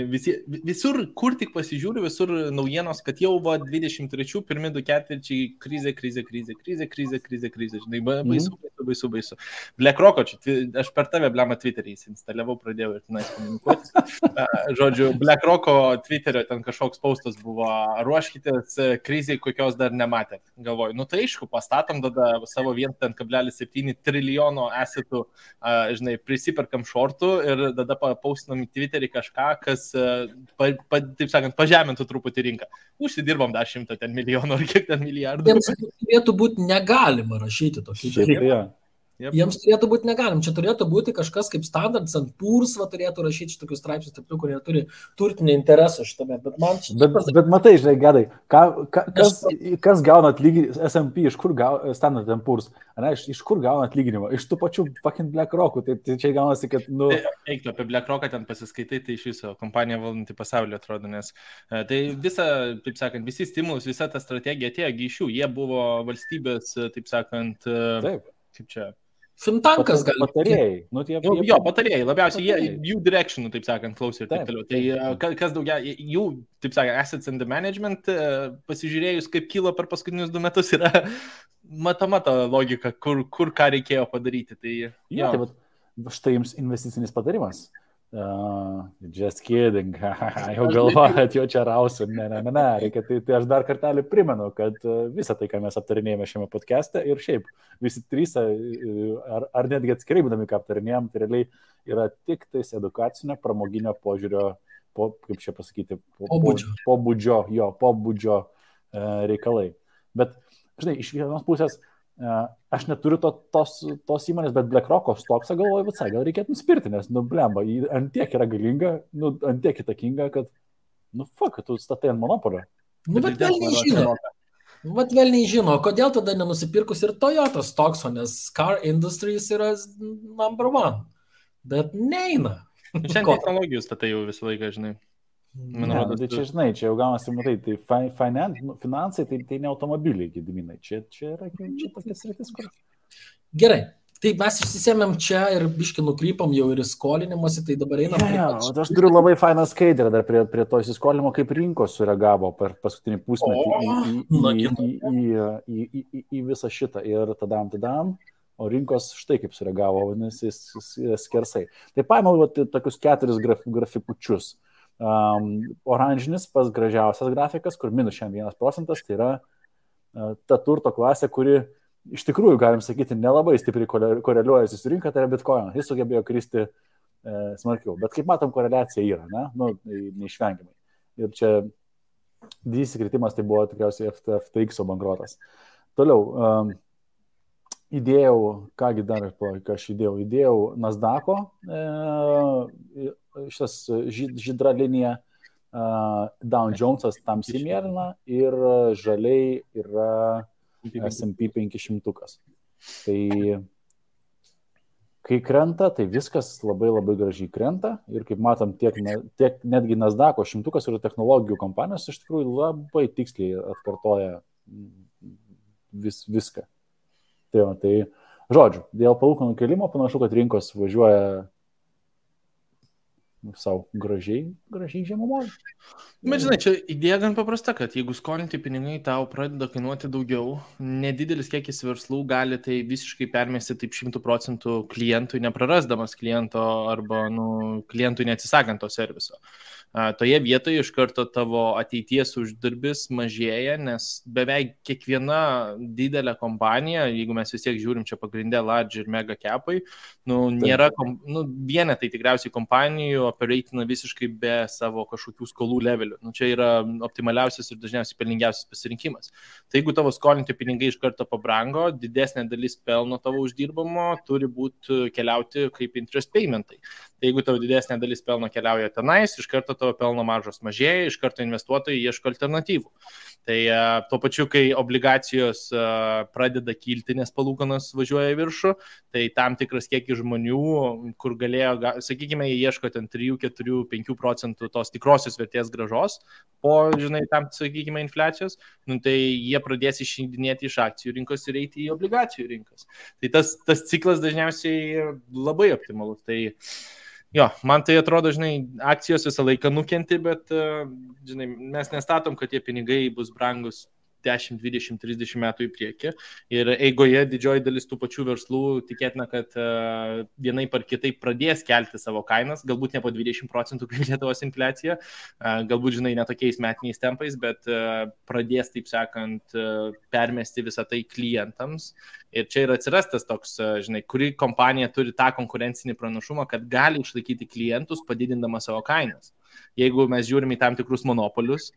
Speaker 3: visur, kur tik pasižiūriu, visur naujienos, kad jau 23 pirmi 2 ketvirčiai krizė, žinai, baisu. BlackRock, aš per tave, blema, Twitter'į instaliavau, pradėjau ir tenais komunikuoti. Žodžiu, BlackRock Twitter'io ten kažkoks postas buvo, ruoškitės krizai, kokios dar nematėt. Galvoju, nu tai aišku, pastatom tada savo 1,7 trilijono asetų, žinai, prisiperkam šortų ir tada postinam į Twitter'į kažką, kas, taip sakant, pažemintų truputį rinką. Užsidirbam dar 100 milijonų ar kiek ten milijardų.
Speaker 4: Jiems turėtų būti negalima rašyti tokį dalyką. Jiems turėtų būti negalim. Čia turėtų būti kažkas kaip Standard & Poor's, turėtų rašyti šitokius straipsnius, kurie turi turtinį interesą šitame.
Speaker 2: Bet matai, žinai, Gedai, kas gauna atlyginimą, S&P, iš kur gauna Standard & Poor's, iš kur gauna atlyginimą? Iš tų pačių fucking BlackRock'ų, tai čia gaunasi, kad, nu...
Speaker 3: Eiktų apie BlackRock'ą ten pasiskaitai, tai iš viso kompanija valdanti pasaulio atrodo, nes tai visa, taip sakant, visi stimulus, visa ta strategija atėjo iš jų, jie buvo valstybės, taip sakant, kaip čia...
Speaker 4: Fintankas gali.
Speaker 2: Patarėjai. Nu,
Speaker 3: jo, patarėjai. Labiausiai jų directionų, taip sakant, klausė ir taip toliau. Tai kas daugia, jų, taip sakant, assets and the management, pasižiūrėjus, kaip kilo per paskutinius 2 metus, yra matoma ta logika, kur ką reikėjo padaryti. Tai,
Speaker 2: jo, tai štai jums investicinis patarimas. Just kidding. Jau galvojat, jau čia rausiu. Ne. Reikia, tai aš dar kartelį primenu, kad visą tai, ką mes aptarinėjame šiame podcast'e ir šiaip visi 3, ar netgi atskirai būdami, ką aptarinėjom, tai realiai yra tik tais edukacinio, pramoginio požiūrio, kaip čia pasakyti, pobūdžio reikalai. Bet, žinai, iš vienos pusės aš neturiu tos įmonės, bet BlackRock'o stoksą galvoju, visai gal reikėtų nusipirti, nes, nu, blemba, ant tiek yra galinga, nu, ant tiek įtakinga, kad, nu, fuck, tu statai ant monopolio.
Speaker 4: Nu, bet velniai žino, kodėl tada nenusipirkus ir Toyota stokso, nes car industries yra number 1, bet neina.
Speaker 3: Šiandien technologijų statai jau visą laiką, žinai.
Speaker 2: Tai čia, žinai, čia jau gaunasi, matai, tai finansai, tai ne automobiliai, Gediminai, čia yra tokia sritis, kur...
Speaker 4: Gerai, tai mes išsisėmėm čia ir biškį nukrypam jau ir įskolinimuose, tai dabar einam...
Speaker 2: Aš turiu labai fainą skaidrę dar prie to įsiskolinimo, kaip rinkos sureagavo per paskutinį pusmetį į visą šitą ir tadam, o rinkos štai kaip sureagavo, vadinasi, skersai. Tai paėmiau tokius 4 grafikučius. Oranžinis pas gražiausias grafikas, kur minus 1%, tai yra ta turto klasė, kuri iš tikrųjų, galim sakyti, nelabai stipriai koreliuojasi su rinka, tai yra Bitcoin. Jis sugebėjo kristi smarkiau. Bet kaip matom, koreliacija yra, ne? Nu, neišvengiamai. Ir čia didysis kritimas tai buvo tikriausiai FTX bankrotas. Toliau, įdėjau, kągi dar, ką aš įdėjau Nasdaq'o, šitas žydra linija, Dow Jones'as tamsiai mėlyna ir žaliai yra S&P 500. Tai kai krenta, tai viskas labai labai gražiai krenta ir kaip matom, tiek netgi Nasdaq'o 100 ir technologijų kompanijos iš tikrųjų labai tiksliai atkartoja viską. Tai žodžiu, dėl palūkanų kėlimo panašu, kad rinkos važiuoja savo gražiai žemumoje.
Speaker 3: Bet žinai, čia idėja gan paprasta, kad jeigu skolinti pinigai tau pradeda kainuoti daugiau, nedidelis kiekis verslų gali tai visiškai permesti taip 100% klientui, neprarasdamas kliento arba klientui neatsisakant to serviso. toje vietoje iš karto tavo ateities uždarbis mažėja, nes beveik kiekviena didelė kompanija, jeigu mes vis tiek žiūrim čia pagrindę large ir mega capai, nėra, vienetai tikriausiai kompanijų operatina visiškai be savo kažkokių skolų levelių. Čia yra optimaliausias ir dažniausiai pelningiausias pasirinkimas. Tai jeigu tavo skolinti pinigai iš karto pabrango, didesnė dalis pelno tavo uždirbamo turi būti keliauti kaip interest paymentai. Tai jeigu tavo didesnė dalis pelno keliauja tenais, iš karto tavo pelno maržos mažėja, iš karto investuotojai ieško alternatyvų. Tai tuo pačiu, kai obligacijos pradeda kilti, nes palūkanos važiuoja į viršų, tai tam tikras kiekis žmonių, kur galėjo, sakykime, jie ieško ten 3, 4, 5% tos tikrosios vertės grąžos po, tam, sakykime, infliacijos, tai jie pradės išeidinėti iš akcijų rinkos ir eiti į obligacijų rinkas. Tai tas ciklas dažniausiai labai optimalus. Tai jo, man tai atrodo, akcijos visą laiką nukenti, bet, mes nestatom, kad tie pinigai bus brangus 10, 20, 30 metų į priekį. Ir eigoje didžioji dalis tų pačių verslų tikėtina, kad vienaip ar kitaip pradės kelti savo kainas, galbūt ne po 20% kaip Lietuvos infliacija, galbūt, ne tokiais metiniais tempais, bet pradės, taip sakant, permesti visą tai klientams. Ir čia ir atsiras tas toks, kuri kompanija turi tą konkurencinį pranašumą, kad gali išlaikyti klientus, padidindama savo kainas. Jeigu mes žiūrime į tam tikrus monopolius,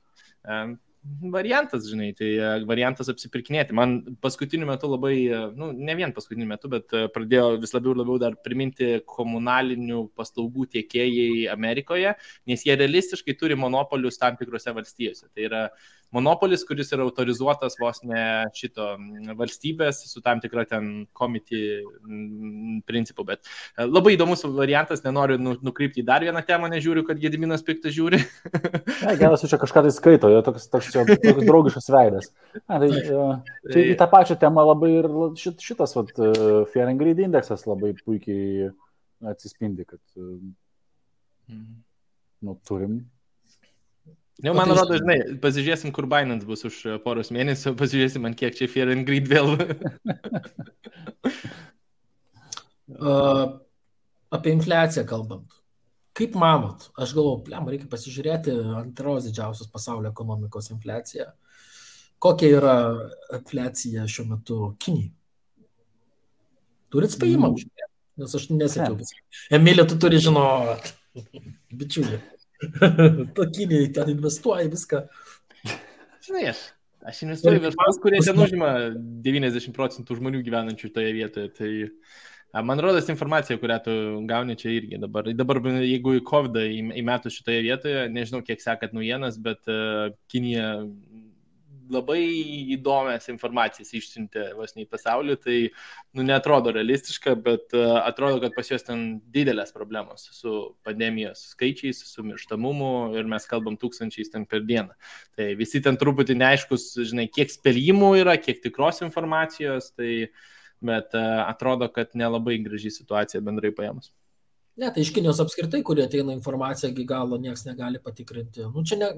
Speaker 3: variantas, tai variantas apsipirkinėti. Man paskutiniu metu labai, ne vien paskutiniu metu, bet pradėjo vis labiau dar priminti komunalinių paslaugų tiekėjai Amerikoje, nes jie realistiškai turi monopolius tam tikrose valstijose. Tai yra monopolis, kuris yra autorizuotas vos ne šito valstybės su tam tikra ten committee principu, bet labai įdomus variantas, nenoriu nukrypti į dar vieną temą, nežiūriu, kad Gediminas piktas žiūri.
Speaker 2: Geras, čia kažką tai skaito, jo toks draugiškas veidas. Tai į tą pačią temą labai ir šitas Fear and Greed indeksas labai puikiai atsispindi, kad turim.
Speaker 3: Jau, man atrodo, pasižiūrėsim, kur Binance bus už poros mėnesių, pasižiūrėsim, ant kiek čia Fear and Greed vėl.
Speaker 4: Apie infliaciją kalbant. Kaip manot? Aš galvoju, reikia pasižiūrėti antros didžiausios pasaulio ekonomikos infliaciją. Kokia yra infliacija šiuo metu Kinijai? Turit spėjimą? Nes aš nesakiau. Emilija, tu turi žinot. Bičiulį. Kinijai ten investuoja viską.
Speaker 3: Aš investuoju verslus, kurie ten užima 90% žmonių gyvenančių toje vietoje. Tai man rodos informacija, kurią tu gauni čia irgi dabar. Dabar jeigu į COVID įmetus šitoje vietoje, nežinau, kiek sekat naujienas, bet Kinija labai įdomias informacijas išsiuntė vos ne į pasaulį, tai neatrodo realistiška, bet atrodo, kad pas juos ten didelės problemos su pandemijos skaičiais, su mirštamumu ir mes kalbam 1000 ten per dieną. Tai visi ten truputį neaiškus, kiek spėjimų yra, kiek tikros informacijos, bet atrodo, kad nelabai graži situacija bendrai paėmus.
Speaker 4: Ne, tai iš Kinijos apskritai, kurie ateina informacija, iki galo niekas negali patikrinti. Čia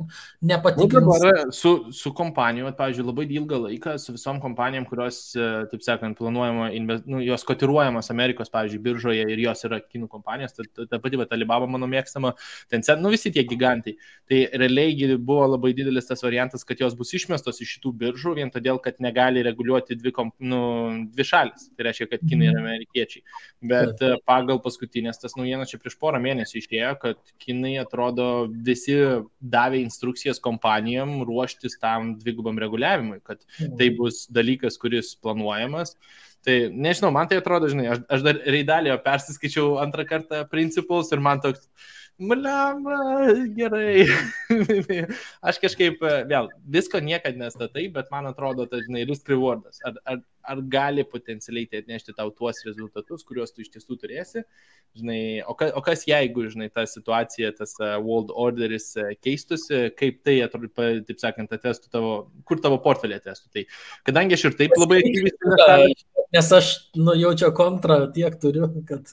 Speaker 4: nepatikrins.
Speaker 3: Su kompanijom, pavyzdžiui, labai ilgą laiką, su visom kompanijom, kurios, taip sakant, planuojama, jos kotiruojamas Amerikos, pavyzdžiui, biržoje ir jos yra kinų kompanijos, ta pati Alibaba mano mėgstama, Tencent, visi tie gigantai. Tai realiai buvo labai didelis tas variantas, kad jos bus išmestos iš šitų biržų, vien todėl, kad negali reguliuoti dvi šalis. Tai reiškia, kad kinai ir amerikiečiai. Bet pagal paskutinės tas naujienas čia prieš porą mėnesių išėjo, kad kinai atrodo visi davė instrukcijas kompanijom ruoštis tam dvigubam reguliavimui, kad tai bus dalykas, kuris planuojamas. Tai nežinau, man tai atrodo, aš dar Reidalio persiskaičiau antrą kartą principus ir man toks, gerai. Aš kažkaip, vėl, visko niekad nestatai, bet man atrodo, tai, risk rewardas. Ar gali potencialiai tai atnešti tau tuos rezultatus, kuriuos tu iš tiesų turėsi? O kas jeigu, ta situacija, tas world orderis keistusi, kaip tai, taip sakant, atestų kur tavo portfelį atestų? Tai, kadangi aš ir taip labai aktyviai...
Speaker 4: Nes aš jaučiu kontrą tiek turiu, kad...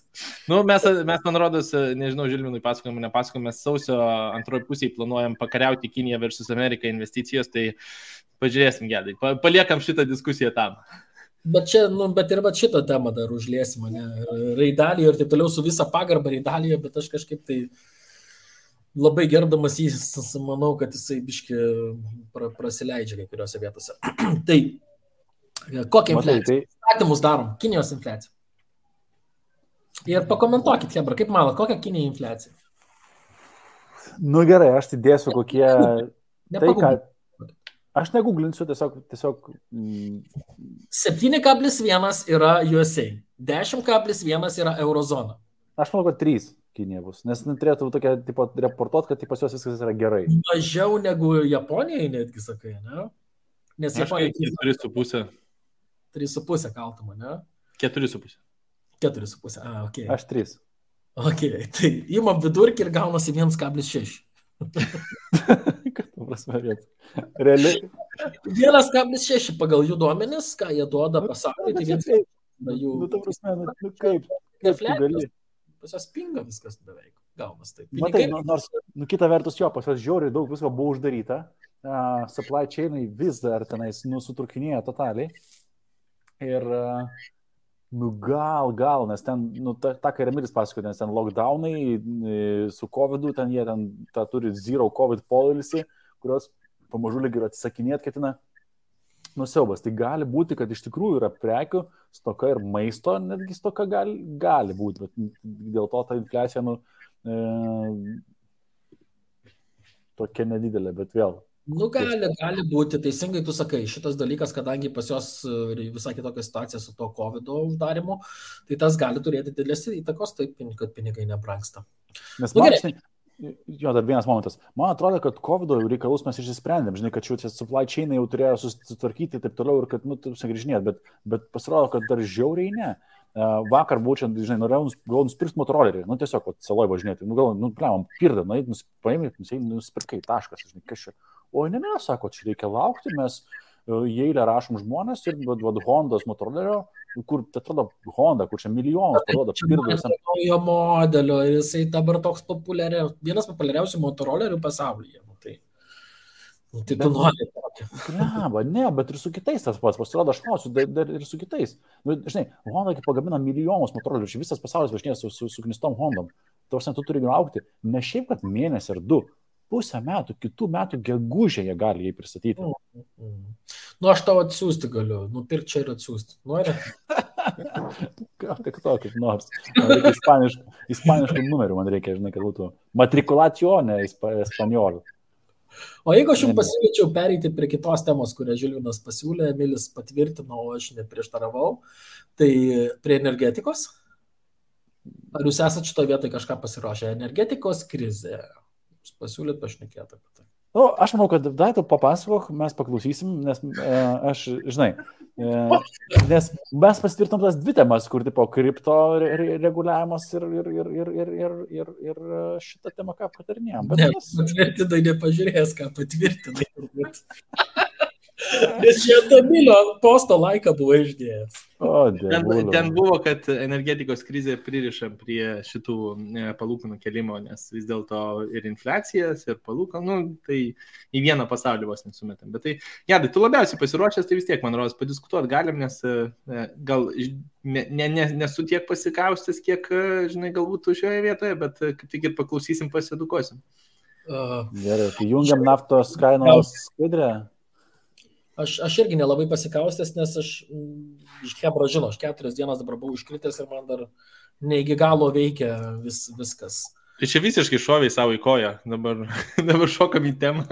Speaker 3: Mes man rodos, nežinau, Žilvinui nepasakojom, mes sausio antroji pusėje planuojam pakariauti Kiniją versus Ameriką investicijos, tai pažiūrėsim gedai, paliekam šitą diskusiją tam.
Speaker 4: Bet ir šitą temą dar užliesim, Reidalį ir taip toliau su visa pagarba Reidalį, bet aš kažkaip tai labai gerdamas jį, manau, kad jisai biški prasileidžia kai kuriuose vietose. Tai kokią
Speaker 2: Matai,
Speaker 4: infliaciją? Statymus darom, Kinijos infliacija. Ir pakomentuokit, Hebra, kaip manot, kokia Kinija infliacija?
Speaker 2: Nu gerai, aš tai dėsiu kokie... Tai ką...
Speaker 4: Nepaguglinsiu.
Speaker 2: Aš neguglinsiu, tiesiog
Speaker 4: 7,1 yra USA, 10,1 yra eurozona.
Speaker 2: aš manau, kad 3 Kinija bus, nes turėtų tokia, tipo, reportuot, kad pas juos viskas yra gerai.
Speaker 4: Mažiau negu Japonijai, netgi sakai, ne? Nes
Speaker 3: Aš
Speaker 4: Japonija
Speaker 3: 4,5.
Speaker 4: 3,5 kaltama, ne?
Speaker 3: 4,5.
Speaker 4: 4,5, ok.
Speaker 2: Aš 3.
Speaker 4: Ok, tai įmam vidurkį ir gaunasi 1,6.
Speaker 2: Kad prasme, bet realiai.
Speaker 4: 1,6 pagal jų duomenis, ką jie duoda pasauliui, tai vienas jų...
Speaker 2: Nu, ta prasme, nu kaip tu gali?
Speaker 4: Pas jos pinga viskas beveik, gaunas taip.
Speaker 2: Matai, nors, kita vertus jo, pas jos žiauriai daug visko buvo uždaryta, supply chainai vis dar tenais sutrūkinėja totaliai. Ir, gal, nes ten, ta ką Remilis pasakoja, nes ten lockdownai su COVID-u, ten jie ten turi zero COVID policy, kurios pamažu lyg ir atsisakinėt ketina. Siaubas. Tai gali būti, kad iš tikrųjų yra prekių stoka ir maisto, netgi stoka gali būti, bet dėl to ta infliacija tokia nedidelė, bet vėl.
Speaker 4: Gali būti, teisingai tu sakai, šitas dalykas, kadangi pas jos visai kitokia situacija su to COVID-o uždarimu, tai tas gali turėti didelės įtakos, taip, kad pinigai nebrangsta.
Speaker 2: Nes jo, dar vienas momentas. Man atrodo, kad COVID reikalus mes išsisprendėm, žinai, kad šių supply chainai jau turėjo susitvarkyti ir taip toliau ir kad, sugrįžinėt, bet pasirodo, kad dar žiauriai ne. Vakar būčiant, žinai, norėjau nusipirkti motorolerį, tiesiog, saloj važinėti, pliamam, pirdą, paėmė, nusipirkai, taškas, žinai, kas čia. O ne, sako, čia reikia laukti, mes į eilę rašom žmonės ir Hondos motorolerio, kur, tai atrodo, Honda, kur čia milijonus parodo, pirdas.
Speaker 4: Naujo modelio, ir jisai dabar toks vienas populiariausių motorolerių pasaulyje. Tai tu nori tokį.
Speaker 2: Ne, bet ir su kitais tas pats, pasirodo, aš klausiu, dar ir su kitais. Žinai, Honda pagamina milijonus motorolerių, čia visas pasaulis važinės su knistom Hondom. Tu turi laukti, ne šiaip, kad mėnesį ar 2. Pusę metų, kitų metų gegužę jie gali jį pristatyti.
Speaker 4: Aš tau atsiųsti galiu, nupirkti čia ir atsiųsti. Nori?
Speaker 2: Gal tik to, kaip nors. Man reikia ispaniškų numerių, man reikia, žinai, kad būtų matrikulacione espanjol.
Speaker 4: O jeigu aš jums pasiūlyčiau pereiti prie kitos temos, kurią Žilvinas pasiūlė, Emilis patvirtino, o aš neprieštaravau, tai prie energetikos? Ar jūs esate šitoje vietoje kažką pasiruošę? Energetikos krizė. Pasiūlyt pašnekėti apie tai.
Speaker 2: Aš manau, kad tu papasakok, mes paklausysim, nes aš, žinai, nes mes pasitvirtinom tas 2 temas, kur tipo kripto reguliavimas ir šitą temą ką patarinėjom.
Speaker 4: Ne, patvirtinai nepažiūrės, ką patvirtinai. Nes čia Emilio posto laiką buvo išdėjęs.
Speaker 3: Ten buvo, kad energetikos krizė pririša prie šitų palūkanų kelimo, nes vis dėlto ir infliacijas, ir palūkanų, tai į vieną pasaulį vos nesumetam. Bet tai, Gedai, tu labiausiai pasiruošęs, tai vis tiek, man rodos, padiskutuoti galim, nes gal nesu tiek pasikaustęs, kiek, žinai, galbūt šioje vietoje, bet kaip tik ir paklausysim, pasiedukosim.
Speaker 2: Gerai, tai jungiam naftos kainos skaidrę.
Speaker 4: Aš irgi nelabai pasikaustęs, nes aš iš Hebra žinau, aš 4 dienas dabar buvau iškritęs ir man dar ne iki galo veikia viskas.
Speaker 3: Tai čia visiškai šoviai savo į koją, dabar šokam į temą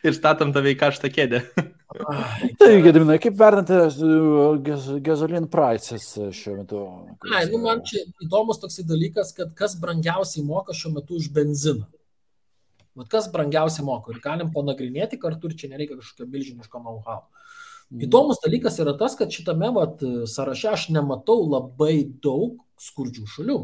Speaker 3: ir statom tave į karštą kėdę.
Speaker 2: Tai, Gediminai, kaip vertinate gasoline prices šiuo metu?
Speaker 4: Man čia įdomus toksai dalykas, kad kas brangiausiai moka šiuo metu už benziną. Kas brangiausiai moka ir galim panagrinėti kartu ir čia nereikia kažkokio milžiniško know-how. Įdomus dalykas yra tas, kad šitame sąraše aš nematau labai daug skurdžių šalių.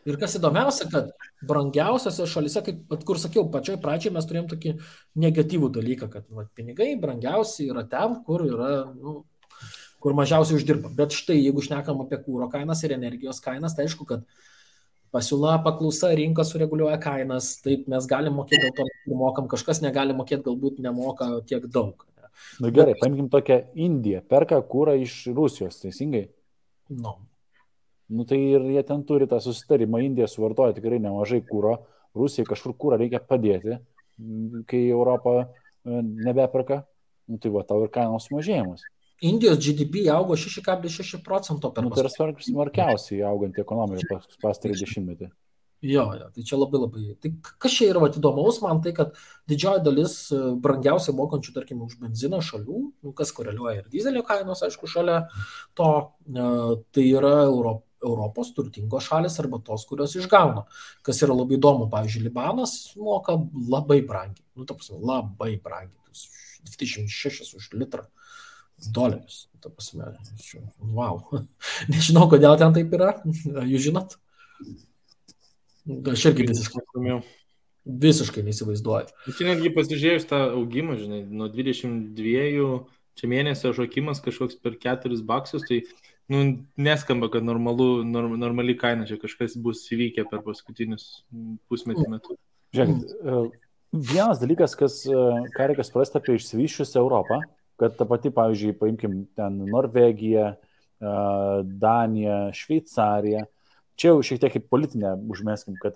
Speaker 4: Ir kas įdomiausia, kad brangiausiose šalyse, kur sakiau, pačioj pradžiai mes turėjom tokį negatyvų dalyką, kad pinigai brangiausiai yra ten, kur yra, kur mažiausiai uždirba. Bet štai, jeigu šnekam apie kūro kainas ir energijos kainas, tai aišku, kad pasiūla, paklausa, rinka sureguliuoja kainas, taip mes galim mokėti, dėl to mokam, kažkas negali mokėti, galbūt nemoka tiek daug.
Speaker 2: Gerai, paimkim tokią Indiją, perka kūrą iš Rusijos, teisingai?
Speaker 4: No.
Speaker 2: Tai ir jie ten turi tą susitarimą, Indija suvartoja tikrai nemažai kūro, Rusijai kažkur kūrą reikia padėti, kai Europa nebeperka, nu, tai va, tau ir kainos mažėjimas.
Speaker 4: Indijos GDP augo 6,6% per
Speaker 2: Tai yra smarkiausiai auganti ekonomika pastarį dešimtmetį.
Speaker 4: Jo, tai čia labai. Tai kas čia yra įdomaus man, tai kad didžioji dalis brangiausiai mokančių, tarkim, už benziną šalių, kas koreliuoja ir dizelio kainos, aišku, šalia to, tai yra Europos turtingos šalis arba tos, kurios išgauna. Kas yra labai įdomu, pavyzdžiui, Libanas moka labai brangiai, labai brangiai, 26 už litrą dolerius. Wow. Nežinau, kodėl ten taip yra, jūs žinot? Aš irgi visiškai neįsivaizduoju.
Speaker 3: Čia netgi pasižiūrėjus tą augimą, žinai, nuo 22 čia mėnesio šokimas kažkoks per $4, tai neskamba, kad normali kaina čia kažkas bus įvykę per paskutinius pusmetį metų.
Speaker 2: Žiūrėkit, vienas dalykas, ką reikia suprasti apie išsivysčiusią Europą, kad ta pati, pavyzdžiui, paimkim ten Norvegiją, Daniją, Šveicariją, čia jau šiek tiek kaip politinę užmeskim, kad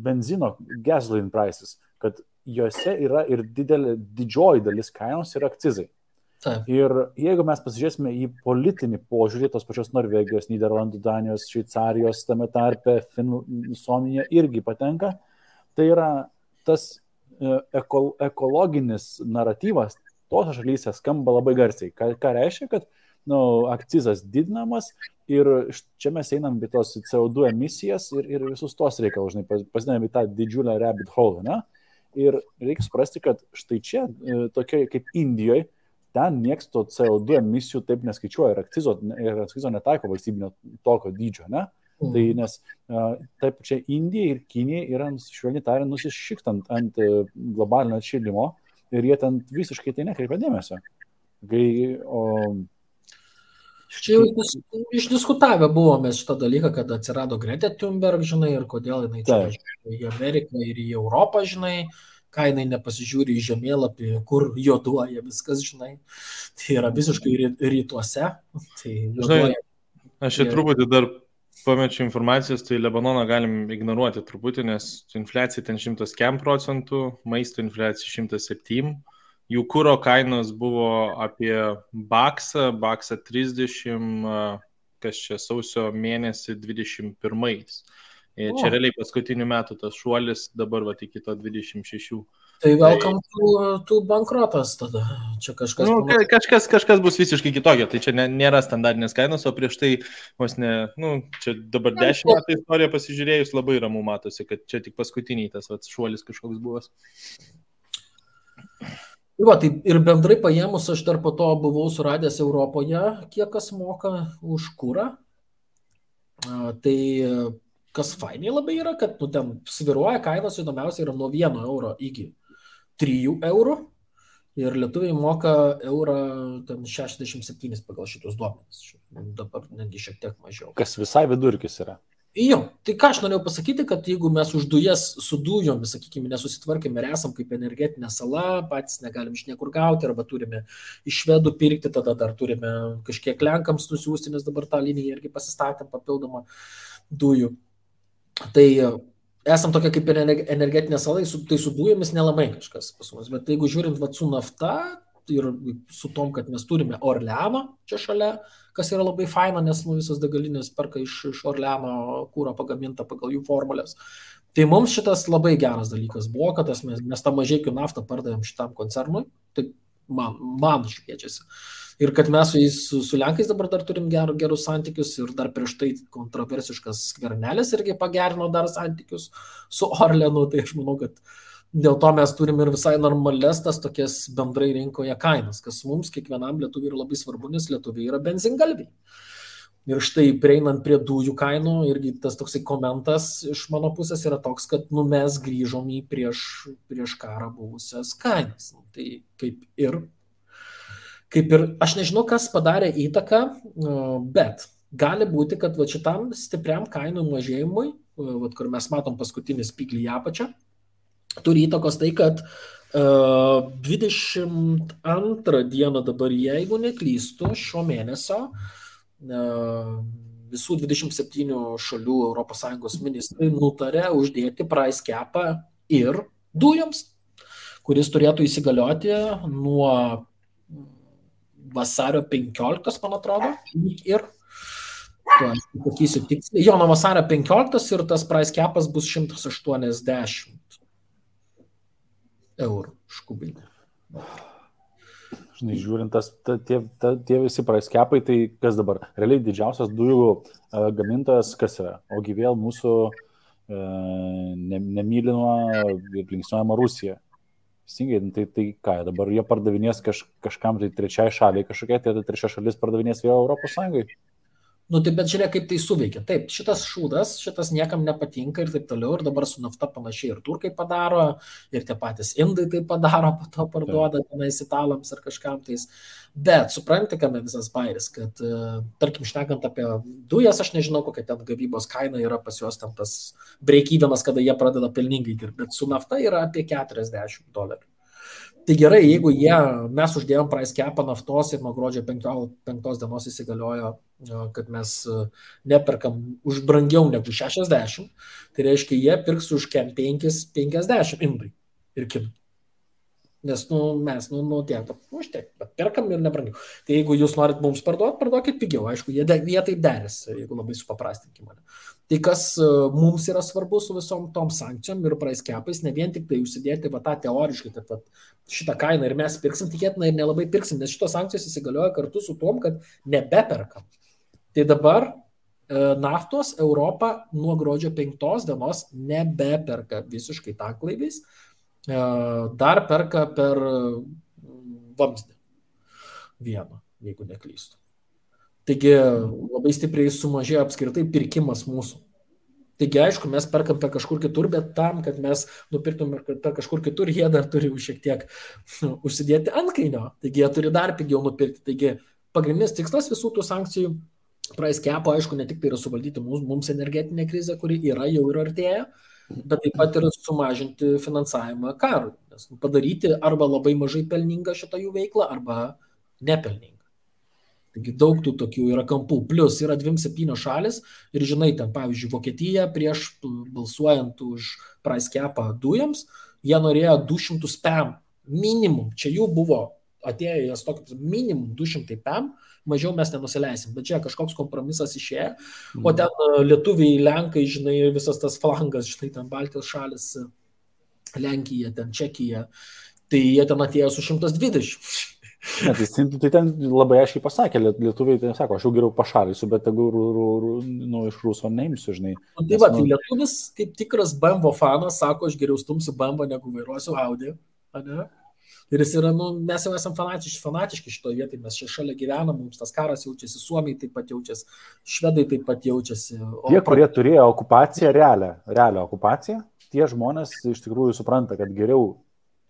Speaker 2: benzino gasoline prices, kad juose yra ir didžioji dalis kainos yra akcizai.
Speaker 4: Taip.
Speaker 2: Ir jeigu mes pasižiūrėsime į politinį požiūrį, tos pačios Norvegijos, Nyderlandų, Danijos, Šveicarijos, tame tarpe Suomija irgi patenka, tai yra tas ekologinis naratyvas tose šalyse skamba labai garsiai. Ką reiškia, kad akcizas didinamas ir čia mes einam į tos CO2 emisijas ir visus tos reikalus, pasidėjome į tą didžiulę rabbit hole, ne? Ir reikia suprasti, kad štai čia, tokia kaip Indijoje, ten nieks to CO2 emisijų taip neskaičiuoja ir akcizo netaiko valstybinio tokio dydžio, ne? Tai nes taip čia Indija ir Kinija yra, švelniai tariant, nusišiktant ant globalinio atšilimo ir jie ten visiškai tai nekreipia dėmesio.
Speaker 4: Čia jau išdiskutavę buvome šitą dalyką, kad atsirado Greta Thunberg, žinai, ir kodėl jinai čia į Ameriką ir į Europą, žinai, ką jinai nepasižiūri į žemėlapį, kur juoduoja viskas, žinai. Tai yra visiškai rytuose. Tai
Speaker 3: žinai, aš čia truputį dar pamečiu informacijos, tai Lebanoną galim ignoruoti truputį, nes infliacija ten 100%, maisto infliacija 107%. Jų kuro kainos buvo apie baksą 30, kas čia sausio mėnesį 21. Čia realiai paskutinių metų tas šuolis dabar iki to 26.
Speaker 4: Tai welcome to bankrotas tada. Čia
Speaker 3: kažkas bus visiškai kitokio, tai čia nėra standartinės kainos, o prieš tai čia dabar 10 metų istoriją pasižiūrėjus labai ramu matosi, kad čia tik paskutiniai tas šuolis kažkoks buvo.
Speaker 4: Tai ir bendrai paėmus, aš dar po to buvau suradęs Europoje, kiek kas moka už kurą. Tai kas fainiai labai yra, kad ten sviruoja kainos, įdomiausia yra nuo 1 euro iki 3 eurų. Ir lietuviai moka eurą ten 67 pagal šitus duomenis. Dabar netgi šiek tiek mažiau.
Speaker 2: Kas visai vidurkis yra.
Speaker 4: Jo, tai ką aš norėjau pasakyti, kad jeigu mes už dujas su dujomis, sakykime, nesusitvarkėme ir esam kaip energetinė sala, patys negalim iš niekur gauti, arba turime iš švedų pirkti, tada dar turime kažkiek lenkams nusiųsti, nes dabar tą liniją irgi pasistatėm papildomą dujų. Tai esam tokia kaip energetinė sala, tai su dujomis nelabai kažkas pas mus, bet jeigu žiūrint su nafta ir su tom, kad mes turime Orleano čia šalia, kas yra labai faina, nes visos degalinės perka iš Orleano kūro pagamintą pagal jų formulės. Tai mums šitas labai geras dalykas buvo, kad mes tą mažeikių naftą pardavėm šitam koncernui, tai man šviečiasi. Ir kad mes su Lenkais dabar dar turim gerus santykius ir dar prieš tai kontroversiškas Skvernelis irgi pagerino dar santykius su Orleanu, tai aš manau, kad dėl to mes turime ir visai normales tas tokias bendrai rinkoje kainas, kas mums kiekvienam lietuviui yra labai svarbu, nes lietuviai yra benzingalviai. Ir štai prieinant prie dujų kainų, irgi tas toksai komentas iš mano pusės yra toks, kad mes grįžom į prieš karą buvusias kainas. Tai kaip ir, aš nežinau, kas padarė įtaką, bet gali būti, kad šitam stipriam kainų mažėjimui, kur mes matom paskutinį spiklį į apačią, turi įtakos tai, kad 22 dieną dabar, jeigu neklystu, šio mėnesio visų 27 šalių ES ministrai nutarė uždėti price capą ir dujoms, kuris turėtų įsigalioti nuo vasario 15, man atrodo, ir pasakysiu tiksliai, jo, nuo vasario 15 ir tas price capas bus 180 eurų už kubinį.
Speaker 2: Žinai, žiūrint, tie visi price capai, tai kas dabar? Realiai didžiausias dujų gamintojas kas yra? Ogi vėl mūsų nemylinama ir linksniuojama Rusija. Tai ką, dabar jie pardavinės kažkam tai trečiai šaliai kažkokia, tai trečia šalis pardavinės vėl Europos Sąjungai.
Speaker 4: Nu, tai bet žiūrėk, kaip tai suveikia. Taip, šitas šūdas, šitas niekam nepatinka ir taip toliau. Ir dabar su nafta panašiai ir turkai padaro, ir tie patys indai tai padaro, po to parduoda tenais italams ar kažkam tais. Bet supranti, kame visas bairis, kad, tarkim, šnekant apie dujas, aš nežinau, kokia ten gavybos kaina yra pas juos ten tas break-evenas, kada jie pradeda pelningai dirbti. Bet su nafta yra apie $40. Tai gerai, jeigu mes uždėjom price capą naftos ir nuo gruodžio 5 dienos įsigaliojo, kad mes neperkam už brangiau negu 60, tai reiškia, jie pirks už 50 indai ir kinų. Nes mes tiek, bet perkam ir nebrangiau. Tai jeigu jūs norit mums parduokit pigiau, aišku, jie taip derės, jeigu labai supaprastinkim mane. Tai kas mums yra svarbu su visom tom sankcijom ir price capais, ne vien tik tai užsidėti tą teoriškai, kad šitą kainą ir mes pirksim, tikėtina ir nelabai pirksim, nes šitos sankcijos įsigalioja kartu su tom, kad nebeperkam. Tai dabar naftos Europa nuo gruodžio 5 dienos nebeperka visiškai tanklaiviais, dar perka per vamzdį vieną, jeigu neklystu. Taigi labai stipriai sumažėjo apskritai pirkimas mūsų. Taigi aišku, mes perkam per kažkur kitur, bet tam, kad mes nupirktum per kažkur kitur, jie dar turi šiek tiek užsidėti antkainio. Taigi jie turi dar pigiau nupirkti. Taigi pagrindinis tikslas visų tų sankcijų price capo, aišku, ne tik tai yra suvaldyti mums energetinę krizę, kuri jau ir artėja, bet taip pat ir sumažinti finansavimą karui. Nes padaryti arba labai mažai pelningą šitą jų veiklą, arba nepelningą. Taigi daug tų tokių yra kampų. Plus yra 27 šalis ir žinai, ten pavyzdžiui Vokietija prieš balsuojant už price capą dujams, jie norėjo 200 PAM minimum. Čia jų buvo atėjęs tokius minimum 200 PAM, mažiau mes nenusileisim. Bet čia kažkoks kompromisas išėjo. O ten lietuviai, lenkai, žinai, visas tas flangas, žinai, ten Baltijos šalis, Lenkija, ten Čekija, tai jie ten atėjo su 120.
Speaker 2: Ne, tai ten labai aiškiai pasakė, lietuviai tai sako, aš jau geriau pašalysiu, bet tegu iš Ruso neimsiu, žinai.
Speaker 4: Tai va, tai lietuvis kaip tikras BMW fanas sako, aš geriau stumsiu BMW, negu vairuosiu Audi. Ne? Ir jis yra, mes jau esam fanatiški šitoje vietoje, mes čia šalia gyvenam, mums tas karas jaučiasi, Suomiai taip pat jaučiasi, švedai taip pat jaučiasi.
Speaker 2: Tie, kurie turėjo okupaciją, realią okupaciją, tie žmonės iš tikrųjų supranta, kad geriau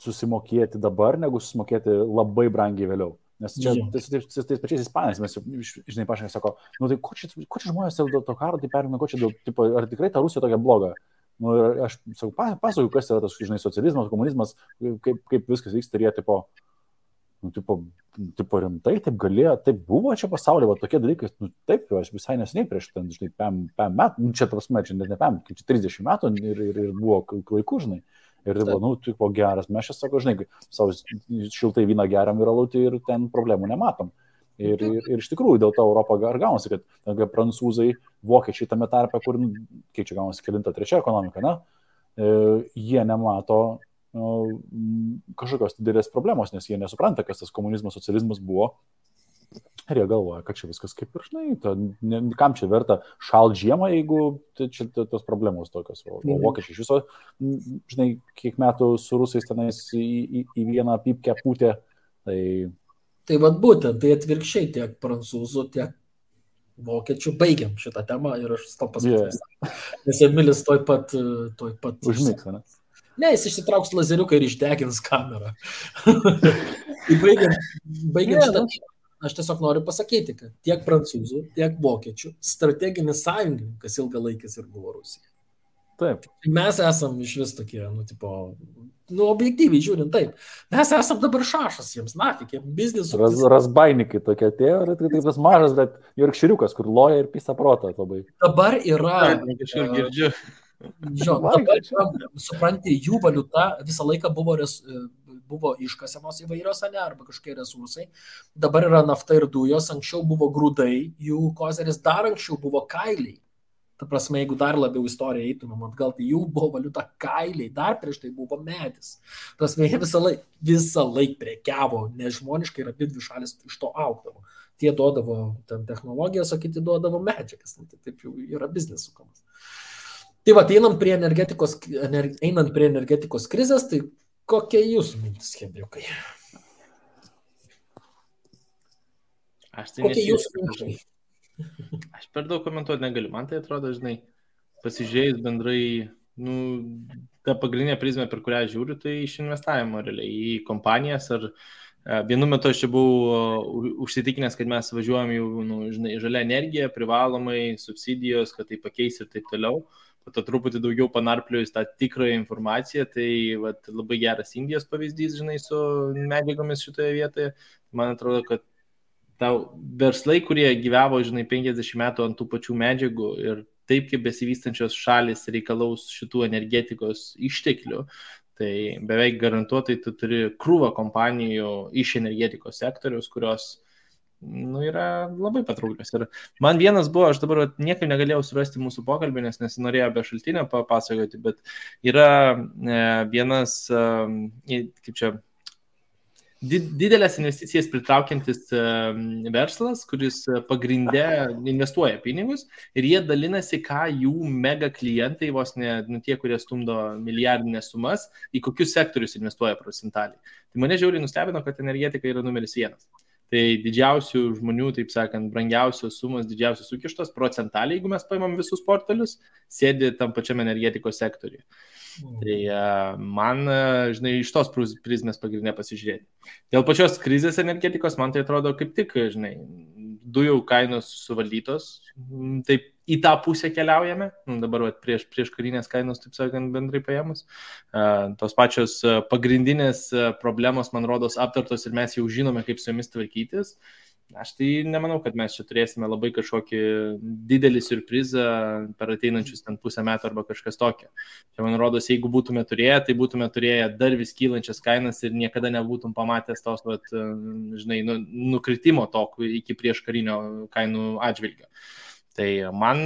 Speaker 2: susimokėti dabar, negu susimokėti labai brangiai vėliau. Nes čia tais pačiais ispanais, mes žinai, pašnekė, sako, tai ko čia žmonės dėl to karo, tai perina, ar tikrai ta Rusija tokia bloga? Aš pasakoju, kas yra tas, žinai, socializmas, komunizmas, kaip viskas vyksta, ir jie tipo rimtai, taip galėjo, taip buvo čia pasaulyje, va tokie dalykai, taip, aš visai neseniai prieš ten, žinai, 5 metų, čia prasme, čia net ne 5, kaip čia 30 metų ir buvo laikų, žinai. Ir tai buvo, geras, mes čia sako, žinai, savo šiltai vyną geriam ir alutį ir ten problemų nematom. Ir iš tikrųjų dėl to Europą ar gaunasi, kad prancūzai, vokiečiai tame tarpe, kur, kiek čia gaunasi, 3 ekonomika, jie nemato kažkokios didelės problemos, nes jie nesupranta, kas tas komunizmas, socializmas buvo. Ir jie galvoja, kad čia viskas kaip ir, žinai, kam čia verta šalt žiemą, jeigu čia tos problemos tokios. O vokiečiai iš viso, žinai, kiek metų su rusais tenais į vieną pypkę pūtė.
Speaker 4: Tai vat būtent, tai atvirkščiai tiek prancūzų, tiek vokiečių baigiam šitą temą ir aš to pasakysiu. Nes Emilis toj pat
Speaker 2: užmigs, ne?
Speaker 4: Ne, jis išsitrauks lazeriuką ir išdegins kamerą. Tai baigiam šitą. Aš tiesiog noriu pasakyti, kad tiek prancūzų, tiek vokiečių strateginis sąjungininkas ilgalaikis ir buvo Rusija.
Speaker 2: Taip.
Speaker 4: Mes esam iš vis tokie, objektyviai žiūrint, taip. Mes esam dabar šašas jiems, kiek biznisų.
Speaker 2: Razbainikai tokie atėjo, ir taip tas mažas, bet jorkširiukas, kur loja ir pisa protą labai.
Speaker 4: Dabar yra...
Speaker 3: Kažkur girdžiu.
Speaker 4: Dabar, supranti, jų valiuta visą laiką buvo iškasemos įvairios, arba kažkokie resursai. Dabar yra nafta ir dujos, anksčiau buvo grūdai, jų kozeris dar anksčiau buvo kailiai. Ta prasme, jeigu dar labiau istoriją eitumėm atgal, tai jų buvo valiuta kailiai, dar prieš tai buvo medis. Ta prasme, jie visą laik prekiavo, nežmoniškai ir abidvi šalis iš to augdavo. Tie duodavo ten technologijas, o kiti duodavo medžiagas. Taip jau yra biznis sukamas. Tai va, einant prie energetikos krizės, tai kokie jūsų mintis, Henriukai? Kokie jūsų mintis?
Speaker 3: Aš per daug komentuoti negaliu. Man tai atrodo, pasižiūrėjus bendrai, ta pagrindinė prizmė, per kurią žiūriu, tai iš investavimo realiai į kompanijas. Ar vienu metu aš čia buvau užsitikinęs, kad mes važiuojam jau žalia energija, privalomai, subsidijos, kad tai pakeis ir taip toliau. Po to truputį daugiau panarpliojus tą tikrąją informaciją, tai labai geras Indijos pavyzdys, su medžiagomis šitoje vietoje. Man atrodo, kad verslai, kurie gyvavo, 50 metų ant tų pačių medžiagų ir taip kaip besivystančios šalis reikalaus šitų energetikos išteklių, tai beveik garantuotai tu turi krūvą kompanijų iš energetikos sektoriaus, kurios yra labai patrauklios. Ir man vienas buvo, aš dabar niekaip negalėjau surasti mūsų pokalbį, nes nesinorėjau be šaltinio papasakoti, bet yra vienas, kaip čia, didelės investicijas pritraukiantis verslas, kuris pagrinde investuoja pinigus ir jie dalinasi, ką jų mega klientai, vos ne tie, kurie stumdo milijardinės sumas, į kokius sektorius investuoja procentaliai. Tai mane žiauriai nustebino, kad energetika yra numeris 1. Tai didžiausių žmonių, taip sakant, brangiausios sumos, didžiausios sukištos procentaliai, jeigu mes paimam visus portfelius, sėdi tam pačiam energetikos sektoriuje. Tai man, iš tos prizmės pagrindinė pasižiūrėti. Dėl pačios krizės energetikos, man tai atrodo kaip tik, dujų kainos suvaldytos, taip į tą pusę keliaujame, dabar prieš karinės kainos, taip sakant, bendrai paėmus. Tos pačios pagrindinės problemos, man rodos, aptartos ir mes jau žinome, kaip su jomis tvarkytis. Aš tai nemanau, kad mes čia turėsime labai kažkokį didelį siurprizą per ateinančius ten pusę metų arba kažkas tokio. Čia, man rodos, jeigu būtume turėję, tai būtume turėję dar vis kylančias kainas ir niekada nebūtum pamatęs tos, nukritimo to iki prieš karinio kainų atžvilgio. Tai man,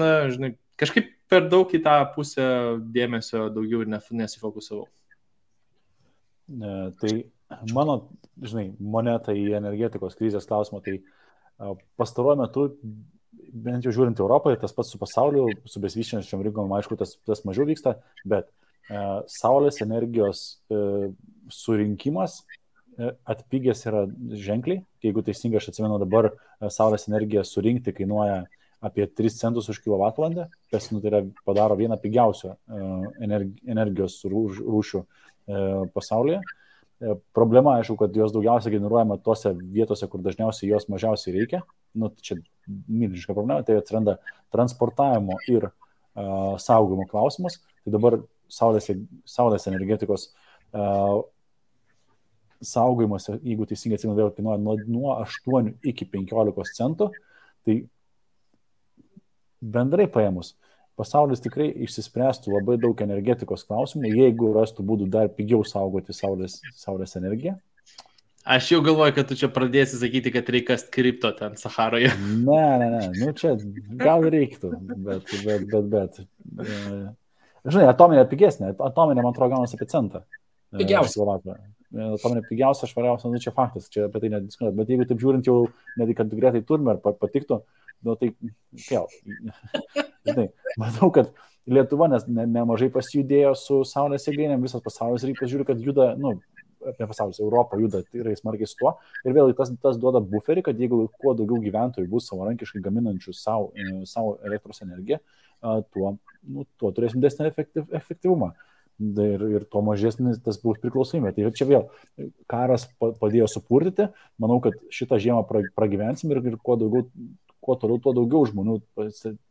Speaker 3: kažkaip per daug į tą pusę dėmesio daugiau ir nesifokusavau.
Speaker 2: Tai mano, moneta į energetikos krizės klausimą, tai pastaruoju metu, bent jau žiūrint Europoje, tas pats su pasauliu, su besivystančiom rinkom, aišku, tas mažiau vyksta, bet saulės energijos surinkimas atpigęs yra ženkliai. Jeigu teisingai aš atsimenu, dabar saulės energiją surinkti kainuoja apie 3 centus už kilovatvalandę, kas padaro vieną pigiausių energijos rūšių pasaulyje. Problema, aišku, kad jos daugiausiai generuojama tose vietose, kur dažniausiai jos mažiausiai reikia. Čia milžiniška problema, tai atsiranda transportavimo ir saugojimo klausimas. Tai dabar saulės energetikos saugojimas, jeigu teisingai atsimenu, vėl kainuoja nuo 8 iki 15 centų. Tai bendrai paėmus, pasaulis tikrai išsispręstų labai daug energetikos klausimų, jeigu rastų būdų dar pigiau saugoti saulės energiją.
Speaker 3: Aš jau galvoju, kad tu čia pradėsi sakyti, kad reikia kripto ten Saharoje.
Speaker 2: Ne, čia gal reiktų, bet. Atominė pigesnė, atominė, man atrodo, gaunasi apie centą.
Speaker 4: Pigiausia.
Speaker 2: Atominė pigiausia, švariausia, čia faktas, čia apie tai nediskutuot. Bet jeigu taip žiūrint jau, netgi kad greitai turime ar patiktų, tai vėl. Matau, kad Lietuva nemažai pasijudėjo su saulės jėgainėm, visas pasaulis reikia žiūri, kad juda, apie pasaulis, Europą juda tikrai smarkiai su tuo. Ir vėl tas duoda buferį, kad jeigu kuo daugiau gyventojų bus savarankiškai gaminančių savo elektros energiją, tuo turėsim didesnį efektyvumą. Ir tuo mažesnis tas bus priklausomybė. Tai čia vėl karas padėjo supurtyti. Manau, kad šitą žiemą pragyvensim ir kuo toliau, tuo daugiau žmonių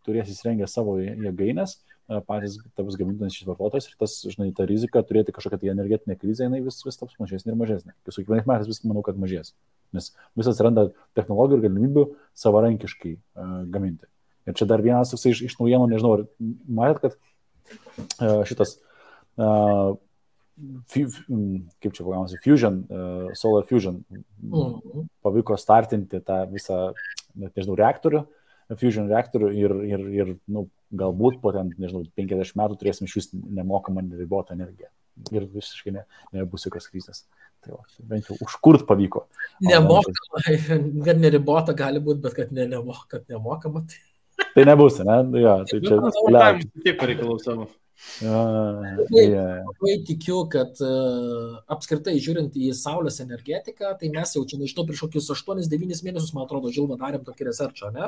Speaker 2: turės įsirengę savo jėgainės, patys taps gaminančiais vartotojais ir tas, žinai, ta rizika turėti kažkokią tai energetinę krizę, jinai vis taps mažesnė ir mažesnė. Su kiekvienais metais vis manau, kad mažės, nes vis atsiranda technologijų ir galimybių savarankiškai gaminti. Ir čia dar vienas iš naujienų, nežinau, ar matėt, kad šitas kaip čia pagaunasi, Solar Fusion pavyko startinti tą visą, net nežinau, Fusion reaktorių ir galbūt po ten, nežinau, 50 metų turėsim iš vis nemokamą neribotą energiją. Ir visiškai nebus jokios krizės. Tai bent jau užkurt pavyko.
Speaker 4: Nemokama, kad neribota gali būti, bet kad nemokama.
Speaker 2: Tai nebus, ne? Ja, tai čia
Speaker 3: tiek pareikalau savo.
Speaker 4: Labai tikiu, kad apskritai žiūrint į saulės energetiką, tai mes jau čia, nežinau, prieš kokius 8-9 mėnesius, man atrodo, Žilva darėm tokį researchą, ne?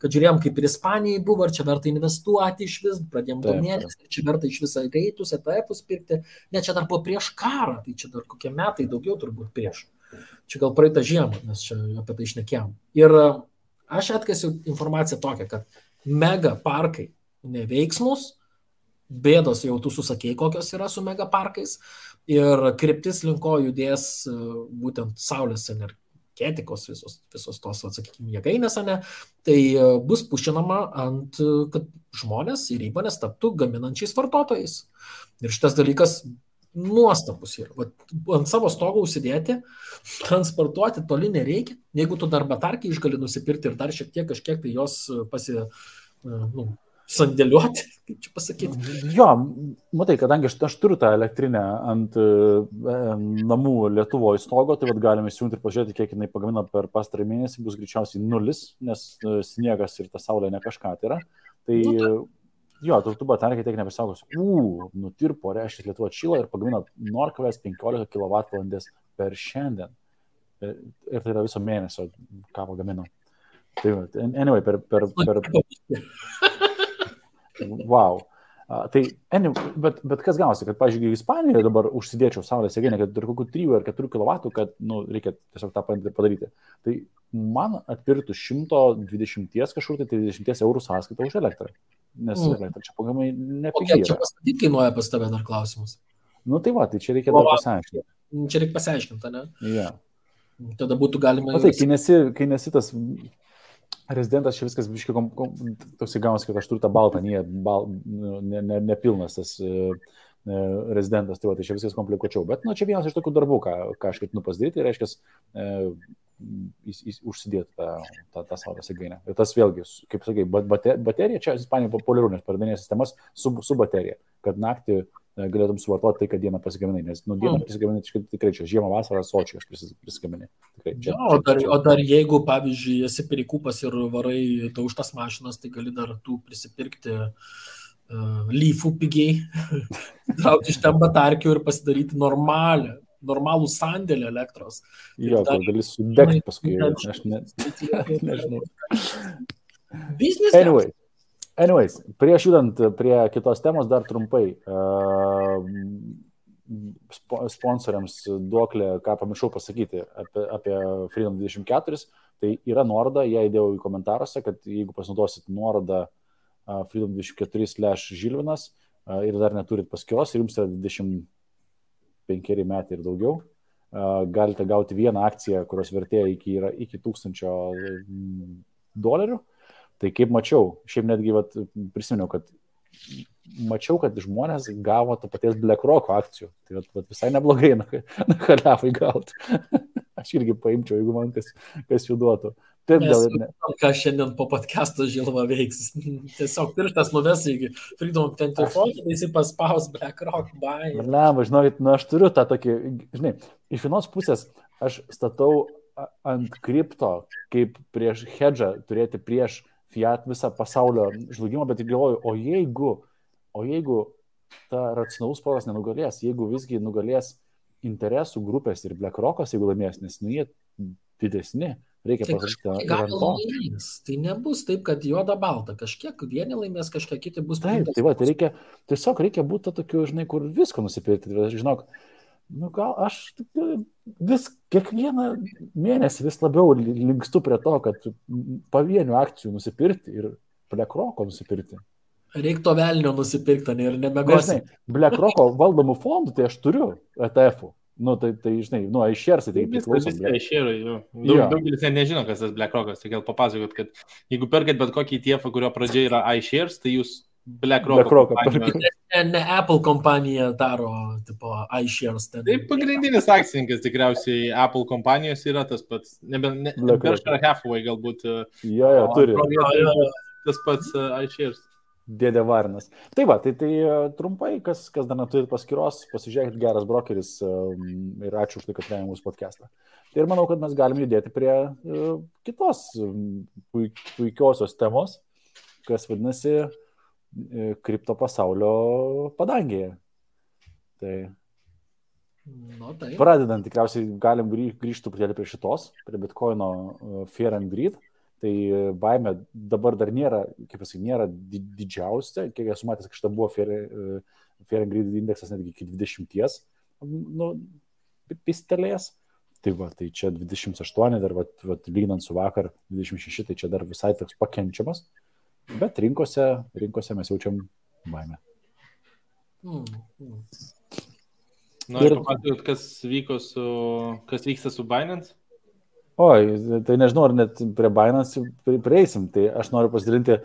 Speaker 4: Kad žiūrėjom, kaip ir Ispanijai buvo, ar čia verta investuoti iš vis, pradėjom domėtis, ar čia verta iš visą greitus, ETF-us pirkti, ne, čia dar buvo prieš karą, tai čia dar kokie metai daugiau turbūt prieš. Čia gal praeitą žiemą, nes čia apie tai šnekėjom. Ir aš atkasiu informaciją tokią, kad mega parkai neveiksmus, bėdos jau tu susakėjai, kokios yra su megaparkais ir kryptis linko judės būtent saulės energetikos visos tos, atsakykime, jėgainės, ne, tai bus pušinama kad žmonės ir įmonės taptų gaminančiais vartotojais. Ir šitas dalykas nuostabus yra. Ant savo stogo užsidėti, transportuoti toli nereikia, jeigu tu dar batarkį išgali nusipirkti ir dar šiek tiek kažkiek tai jos sandėliuoti, kaip čia pasakyti.
Speaker 2: Jo, matai, kadangi aš turiu tą elektrinę ant namų Lietuvoje stogo, tai galime įsijungti ir pažiūrėti, kiek jinai pagamina per pastarąjį mėnesį, bus greičiausiai 0, nes sniegas ir ta saulė ne kažką tai yra. Tai jo, tu batarkiai tiek nebesaugos. Nutirpo, reiškia, Lietuva atšyla ir pagamina 0,15 kWh per šiandien. Ir tai yra viso mėnesio, ką pagamino. Tai, anyway, per wow. Bet kas gausi, kad, pavyzdžiui, Ispanijoje dabar užsidėčiau saulės jėgainę, kad turi kokių 3 ar 4 kW, kad reikia tiesiog tą padaryti. Tai man atpirktų 120 kažkur, tai 30 eurų sąskaitą už elektrą. Nes elektra čia pagamai nepigiai yra.
Speaker 4: Čia pastatyti kainuoja pas tave dar klausimus.
Speaker 2: Tai va, tai čia reikia dar pasiaiškinti.
Speaker 4: Čia reikia pasiaiškinti, ne?
Speaker 2: Ja.
Speaker 4: Tada būtų galima...
Speaker 2: Tai, kai nesi tas... Rezidentas čia viskas biškai toks įgaunas, kad aš turiu tą baltą, nepilnas tas rezidentas, tai čia viskas komplikuočiau. Bet čia vienas iš tokių darbų, ką aš ketinu pasidaryti, reiškia užsidėti tą saulės jėgainę. Ir tas vėlgi, kaip sakai, baterija, čia Ispanijoje populiaru, nes pardavinėja sistemas su baterija, kad naktį galėtum suvartoti tai, kad dieną pasigaminai, nes dieną pasigaminai tikrai čia žiemą, vasarą, sočiai aš prisigaminai.
Speaker 4: O dar jeigu, pavyzdžiui, esi perikūpas ir varai daužtas mašinas, tai gali dar tu prisipirkti lyfų pigiai, traukti iš ten batarkių ir pasidaryti normalų sandėlį elektros.
Speaker 2: Jo, kur gali sudegti paskui, aš nežinau. Anyways, prieš judant prie kitos temos dar trumpai sponsoriams duoklė, ką pamiršau pasakyti apie Freedom 24, tai yra nuoroda, ją įdėjau į komentaruose, kad jeigu pasinaudosit nuorodą Freedom 24/Žilvinas ir dar neturit paskyros ir jums yra 25 metai ir daugiau, galite gauti vieną akciją, kurios vertė yra iki $1000. Tai kaip mačiau, šiaip netgi prisiminiau, kad mačiau, kad žmonės gavo to paties BlackRock akcijų. Tai visai neblogai nakaliavai gauti. Aš irgi paimčiau, jeigu man kas jų duotų.
Speaker 4: Ką šiandien po podcast'o Žilva veiks. Tiesiog pirštas nuves į Freedom 24, tai jis paspaus BlackRock buy.
Speaker 2: Žinokit, aš turiu tą tokį, žinai, iš vienos pusės aš statau ant kripto, kaip prieš hedžą turėti prieš fiat visą pasaulio žlugimą, bet galvoju, o jeigu ta racionalus protas nenugalės, jeigu visgi nugalės interesų grupės ir BlackRock'as, jeigu laimės, nes jie didesni, reikia pasakyti.
Speaker 4: Tai nebus taip, kad juoda balta, kažkiek vieni laimės, kažkiek kiti bus.
Speaker 2: Tai tiesiog reikia būti tokiu, žinai, kur visko nusipirkti. Žinok, gal aš kiekvieną mėnesį vis labiau linkstu prie to, kad pavienių akcijų nusipirkti ir BlackRock'o nusipirkti.
Speaker 4: Reiktų velnio nusipirkti ir
Speaker 2: Žinai,
Speaker 4: nebegosi.
Speaker 2: BlackRock'o valdomų fondų, tai aš turiu ETF-ų. Žinai, iShares tai priklauso.
Speaker 3: iShares, jo.
Speaker 2: Jo.
Speaker 3: Daugelis nežino, kas tas BlackRock'as, tai gal papasakot, kad jeigu perkat bet kokį ETF, kurio pradžia yra iShares, tai jūs BlackRock'o
Speaker 2: BlackRock'o
Speaker 4: Ne Apple kompanija daro, tipo, iShares.
Speaker 3: Tai pagrindinis akcininkas tikriausiai Apple kompanijos yra tas pats, Berkshire Hathaway galbūt.
Speaker 2: Jo, turi.
Speaker 3: Tas pats iShares.
Speaker 2: Dėdė Varnas. Tai va, tai trumpai, kas dar neturi paskyros, pasižiūrėkit, geras brokeris ir ačiū už tai, kad rėmė mūsų podcastą. Tai ir manau, kad mes galim judėti prie kitos puikiosios temos, kas vadinasi kripto pasaulio padangėje. Tai pradedant, tikriausiai galim grįžti truputėlį prie šitos, prie Bitcoino Fear and Greed. Tai baimė dabar dar nėra, kaip pasakai, nėra didžiausia, kiek esu matęs, kad šitą buvo Fear and Greed indeksas netgi iki 20, pistelės. Tai va, tai čia 28, dar lyginant su vakar 26, tai čia dar visai toks pakenčiamas, bet rinkose mes jaučiam baimę.
Speaker 3: Noriu papasakoti, kas vyksta su Binance?
Speaker 2: Oi, tai nežinau, ar net prie Binance prieisim, tai aš noriu pasidalinti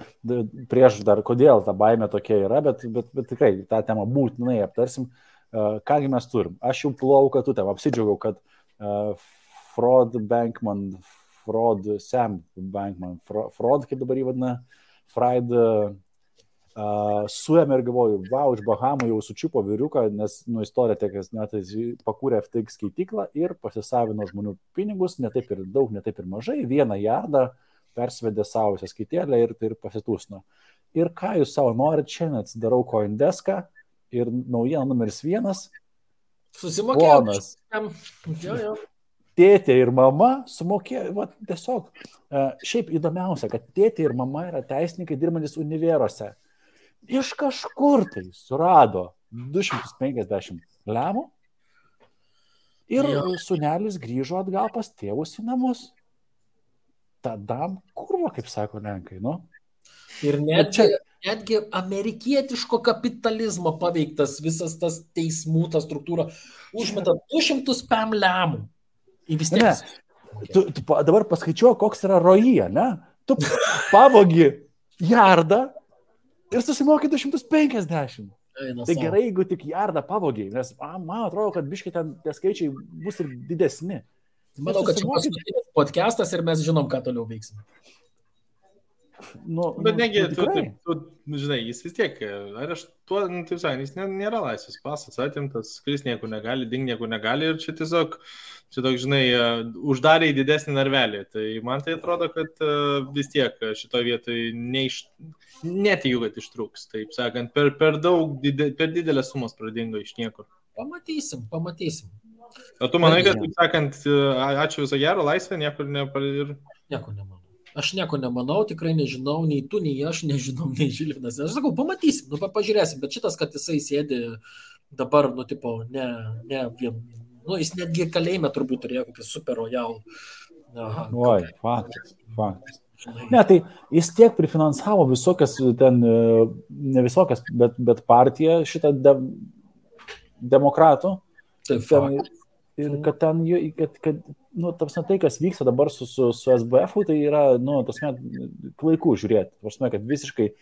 Speaker 2: prieš dar, kodėl ta baimė tokia yra, bet tikrai tą temą būtinai aptarsim. Kągi mes turim? Aš jau pulau katutėm, apsidžiaugiau, kad Sam Bankman, kaip dabar jį vadina, Fried suėmė ir galvoju, iš Bahamų jau sučiupo vyriuką, nes istorija tiek, net pakūrė FTX skaityklą ir pasisavino žmonių pinigus, ne taip ir daug, ne taip ir mažai, 1 jardą persvedė savo sąskaitėlę ir pasitūsino. Ir ką jūs savo norit, šiandien atsidarau CoinDesk'ą ir naujiena numeris 1.
Speaker 4: Susimokėjau.
Speaker 2: Tėtė ir mama sumokėjo, tiesiog. Šiaip įdomiausia, kad tėtė ir mama yra teisininkai dirbantis univeruose. Iš kažkur tai surado 250 lemų ir sūnelis grįžo atgal pas tėvus į namus. Tada kurva, kaip sako lenkai,
Speaker 4: Ir netgi amerikietiško kapitalizmo paveiktas visas tas teismų, ta struktūra, užmeta 200 pam lemų. Į vis tiek.
Speaker 2: Tu dabar paskaičiuoji, koks yra roja, ne? Tu pavogi jardą ir susimokai 250. Tai gerai, jeigu tik jardą pavogiai, nes man atrodo, kad biškai ten tie skaičiai bus ir didesni.
Speaker 4: Manau, kad čia paskutinis podcastas ir mes žinom, ką toliau veiksime.
Speaker 3: Bet negi, tu žinai, jis vis tiek, taip sakant, jis nėra laisvės pasas, atimtas, kuris nieko negali, nieko negali ir čia tiesiog, žinai, uždarė į didesnį narvelį. Tai man tai atrodo, kad vis tiek šitoje vietoje netikiu, kad ištrūks. Taip sakant, per didelės sumos pradingo iš niekur.
Speaker 4: Pamatysim.
Speaker 3: O tu manai, kad, taip sakant, ačiū viso gero, laisvė, niekur ir...
Speaker 4: Nieko nemanau. Aš nieko nemanau, tikrai nežinau, nei tu, nei aš nežinom, nei Žilvinas. Aš sakau, pamatysim, pažiūrėsim, bet šitas, kad jisai sėdi dabar, jis netgi kalėjime turbūt turėjo kokį super royal.
Speaker 2: Oi, faktas. Ne, tai jis tiek prifinansavo visokias, ne visokias, bet partiją šitą demokratų.
Speaker 4: Taip,
Speaker 2: ir kad tai, kas vyksta dabar su SBF-u, tai yra, klaiku žiūrėti. Kad visiškai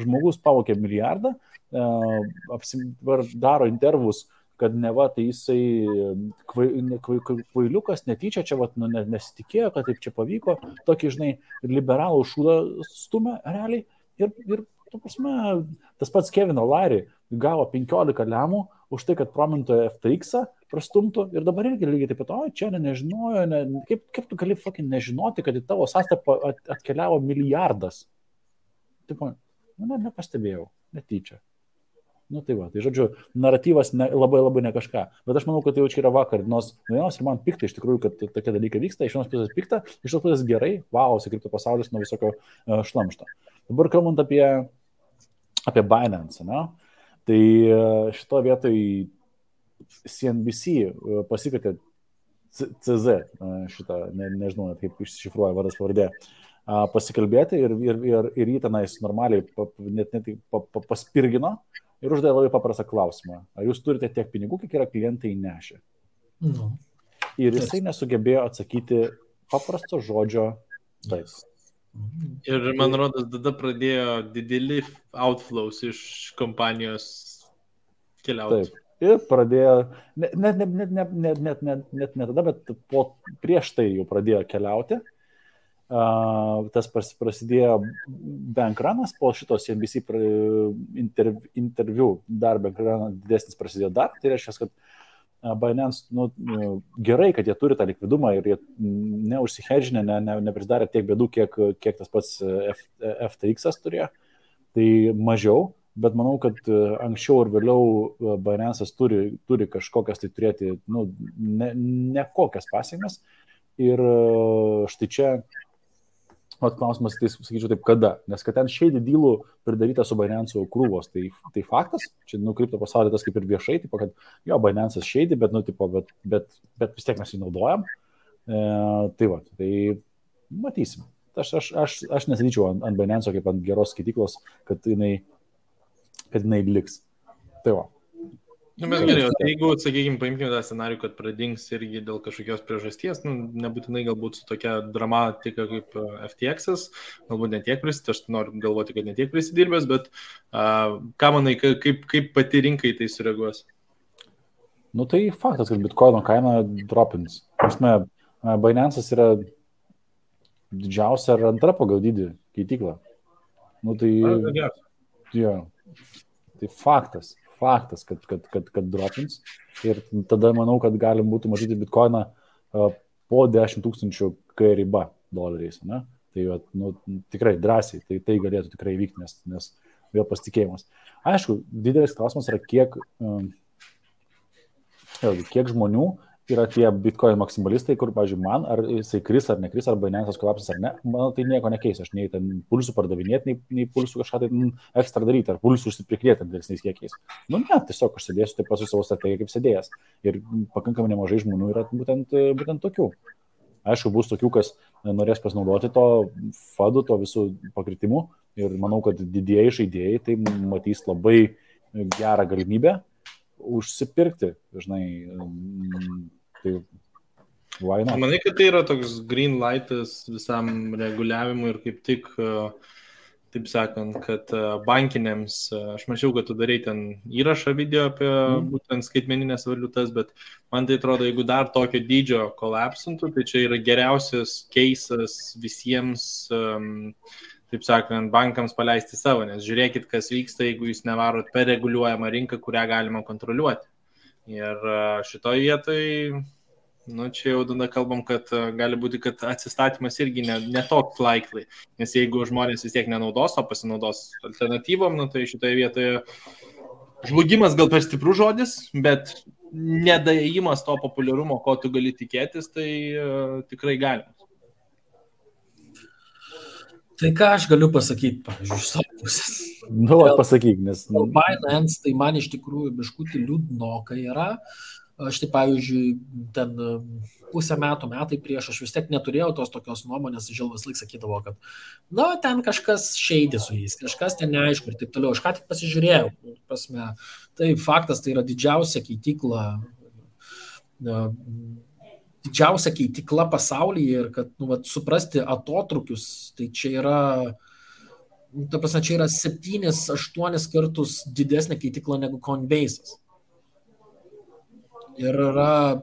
Speaker 2: žmogus pavokė milijardą, daro intervus, kad neva tai jisai kvailiukas, netyčia čia nesitikėjo, kad taip čia pavyko, tokį, žinai, liberalų šūdą stumia realiai. Ir tas pats Kevin O'Leary gavo 15 lemų už tai, kad promintojo FTX-ą prastumtų ir dabar irgi lygiai taip pat, čia nežinojo, kaip tu gali nežinoti, kad į tavo sąskaitą atkeliavo milijardas. Taip, nepastebėjau, netyčia. Tai va, tai žodžiu, naratyvas labai ne kažką, bet aš manau, kad tai jau čia yra vakar, nors ir man pikta iš tikrųjų, kad tokie dalykai vyksta, iš vienos pusės pikta, iš tos pusės gerai, kripto pasaulis nuo visokio šlamšto. Dabar kalbant apie Binance, tai šito vietoj CNBC pasikvietė CZ, šitą, nežinau, kaip iššifruoja vardas pavardė, pasikalbėti ir jį tenais normaliai net paspirgino ir uždavė labai paprastą klausimą. Ar jūs turite tiek pinigų, kiek yra klientai nešę?
Speaker 4: Nu.
Speaker 2: Ir jisai nesugebėjo atsakyti paprasto žodžio taip.
Speaker 3: Ir man rodos, tada pradėjo dideli outflows iš kompanijos keliauti.
Speaker 2: Taip. Ir pradėjo, net ne tada, bet prieš tai jau pradėjo keliauti. Tas prasidėjo bankranas, po šitos NBC interviu dar bankranas didesnis prasidėjo dar. Tai reiškia, kad Binance, gerai, kad jie turi tą likvidumą ir jie neužsihedžinę, neprisidarė tiek bėdų, kiek tas pats FTX turėjo. Tai mažiau, bet manau, kad anksčiau ir vėliau Binance'as turi kažkokias tai turėti, nekokias pasiekmes. Ir štai čia klausimas, tai sakyčiau taip, kada? Nes kad ten shady dealų pridaryta su Binance'u krūvos, tai faktas, čia kripto pasaulyje tas kaip ir viešai, tipo, kad jo, Binance'as shady, bet vis tiek mes jį naudojam. Tai va, tai matysim. Aš nesidyčiau ant Binance'o kaip ant geros skaitiklos, kad jinai liks. Tai va.
Speaker 3: Bet gerai, tai jeigu, sakykime, paimkime tą scenarių, kad pradings irgi dėl kažkokios priežasties, nebūtinai galbūt su tokia dramatika kaip FTX'as, galbūt netiek prisidėrbęs, aš noriu galvoti, kad netiek prisidirbęs, bet ką manai, kaip pati rinkai tai sureaguos?
Speaker 2: Tai faktas, kad Bitcoino kaina dropins. Binance'as yra didžiausia ar antra pagal dydį keitykla. Tai faktas, kad dropins. Ir tada manau, kad galim būtų matyti Bitcoiną po 10 000 K riba doleriais. Ne? Tai tikrai drąsiai, tai galėtų tikrai vykti, nes vėl pasitikėjimas. Aišku, didelis klausimas yra, kiek žmonių yra tie Bitcoin maksimalistai, kur, pavyzdžiui, man, ar jisai kris ar nekris, ar Binance'as kolapsas ar ne, man tai nieko nekeis, aš nei ten pulsų pardavinėti, nei pulsų kažką tai ekstra daryti, ar pulsų užsiprikrėti dėlesniais kiekiais. Ne, tiesiog aš sėdėsiu taip pat su savo strategija kaip sėdėjęs. Ir pakankamai nemažai žmonių yra būtent tokių. Aišku, bus tokių, kas norės pasinaudoti to fadų, to visų pakritimų. Ir manau, kad didieji žaidėjai tai matys labai gerą galimybę užsipirkti, žinai, tai why not?
Speaker 3: Manai, kad tai yra toks green lightas visam reguliavimui ir kaip tik, taip sakant, kad bankinėms, aš mačiau, kad tu darai ten įrašą video apie būtent skaitmeninės valiutas, bet man tai atrodo, jeigu dar tokio dydžio kolapsintų, tai čia yra geriausias keisas visiems, taip sakant, bankams paleisti savo, nes žiūrėkit, kas vyksta, jeigu jūs nevarot per reguliuojamą rinką, kurią galima kontroliuoti. Ir šitoje vietoje, čia jau tada kalbam, kad gali būti, kad atsistatymas irgi ne toks likely, nes jeigu žmonės vis tiek nenaudos, o pasinaudos alternatyvom, tai šitoje vietoje žlugimas gal per stiprus žodis, bet nedaėjimas to populiarumo, ko tu gali tikėtis, tai tikrai galima.
Speaker 4: Tai ką aš galiu pasakyti, pavyzdžiui, iš savo pusės?
Speaker 2: Pasakyk, nes...
Speaker 4: Binance, tai man iš tikrųjų biškutį liūdnokai yra. Aš tai, pavyzdžiui, ten pusę metai prieš aš vis tiek neturėjau tos tokios nuomonės, Žilvas laik sakydavo, kad ten kažkas šeidė su jais, kažkas ten neaišku ir taip toliau. Aš ką tik pasižiūrėjau, tai faktas, tai yra didžiausia keitykla, pasaulyje ir kad suprasti atotrukius, tai čia yra, čia yra 7-8 kartus didesnė keitykla negu Coinbase'as. Ir yra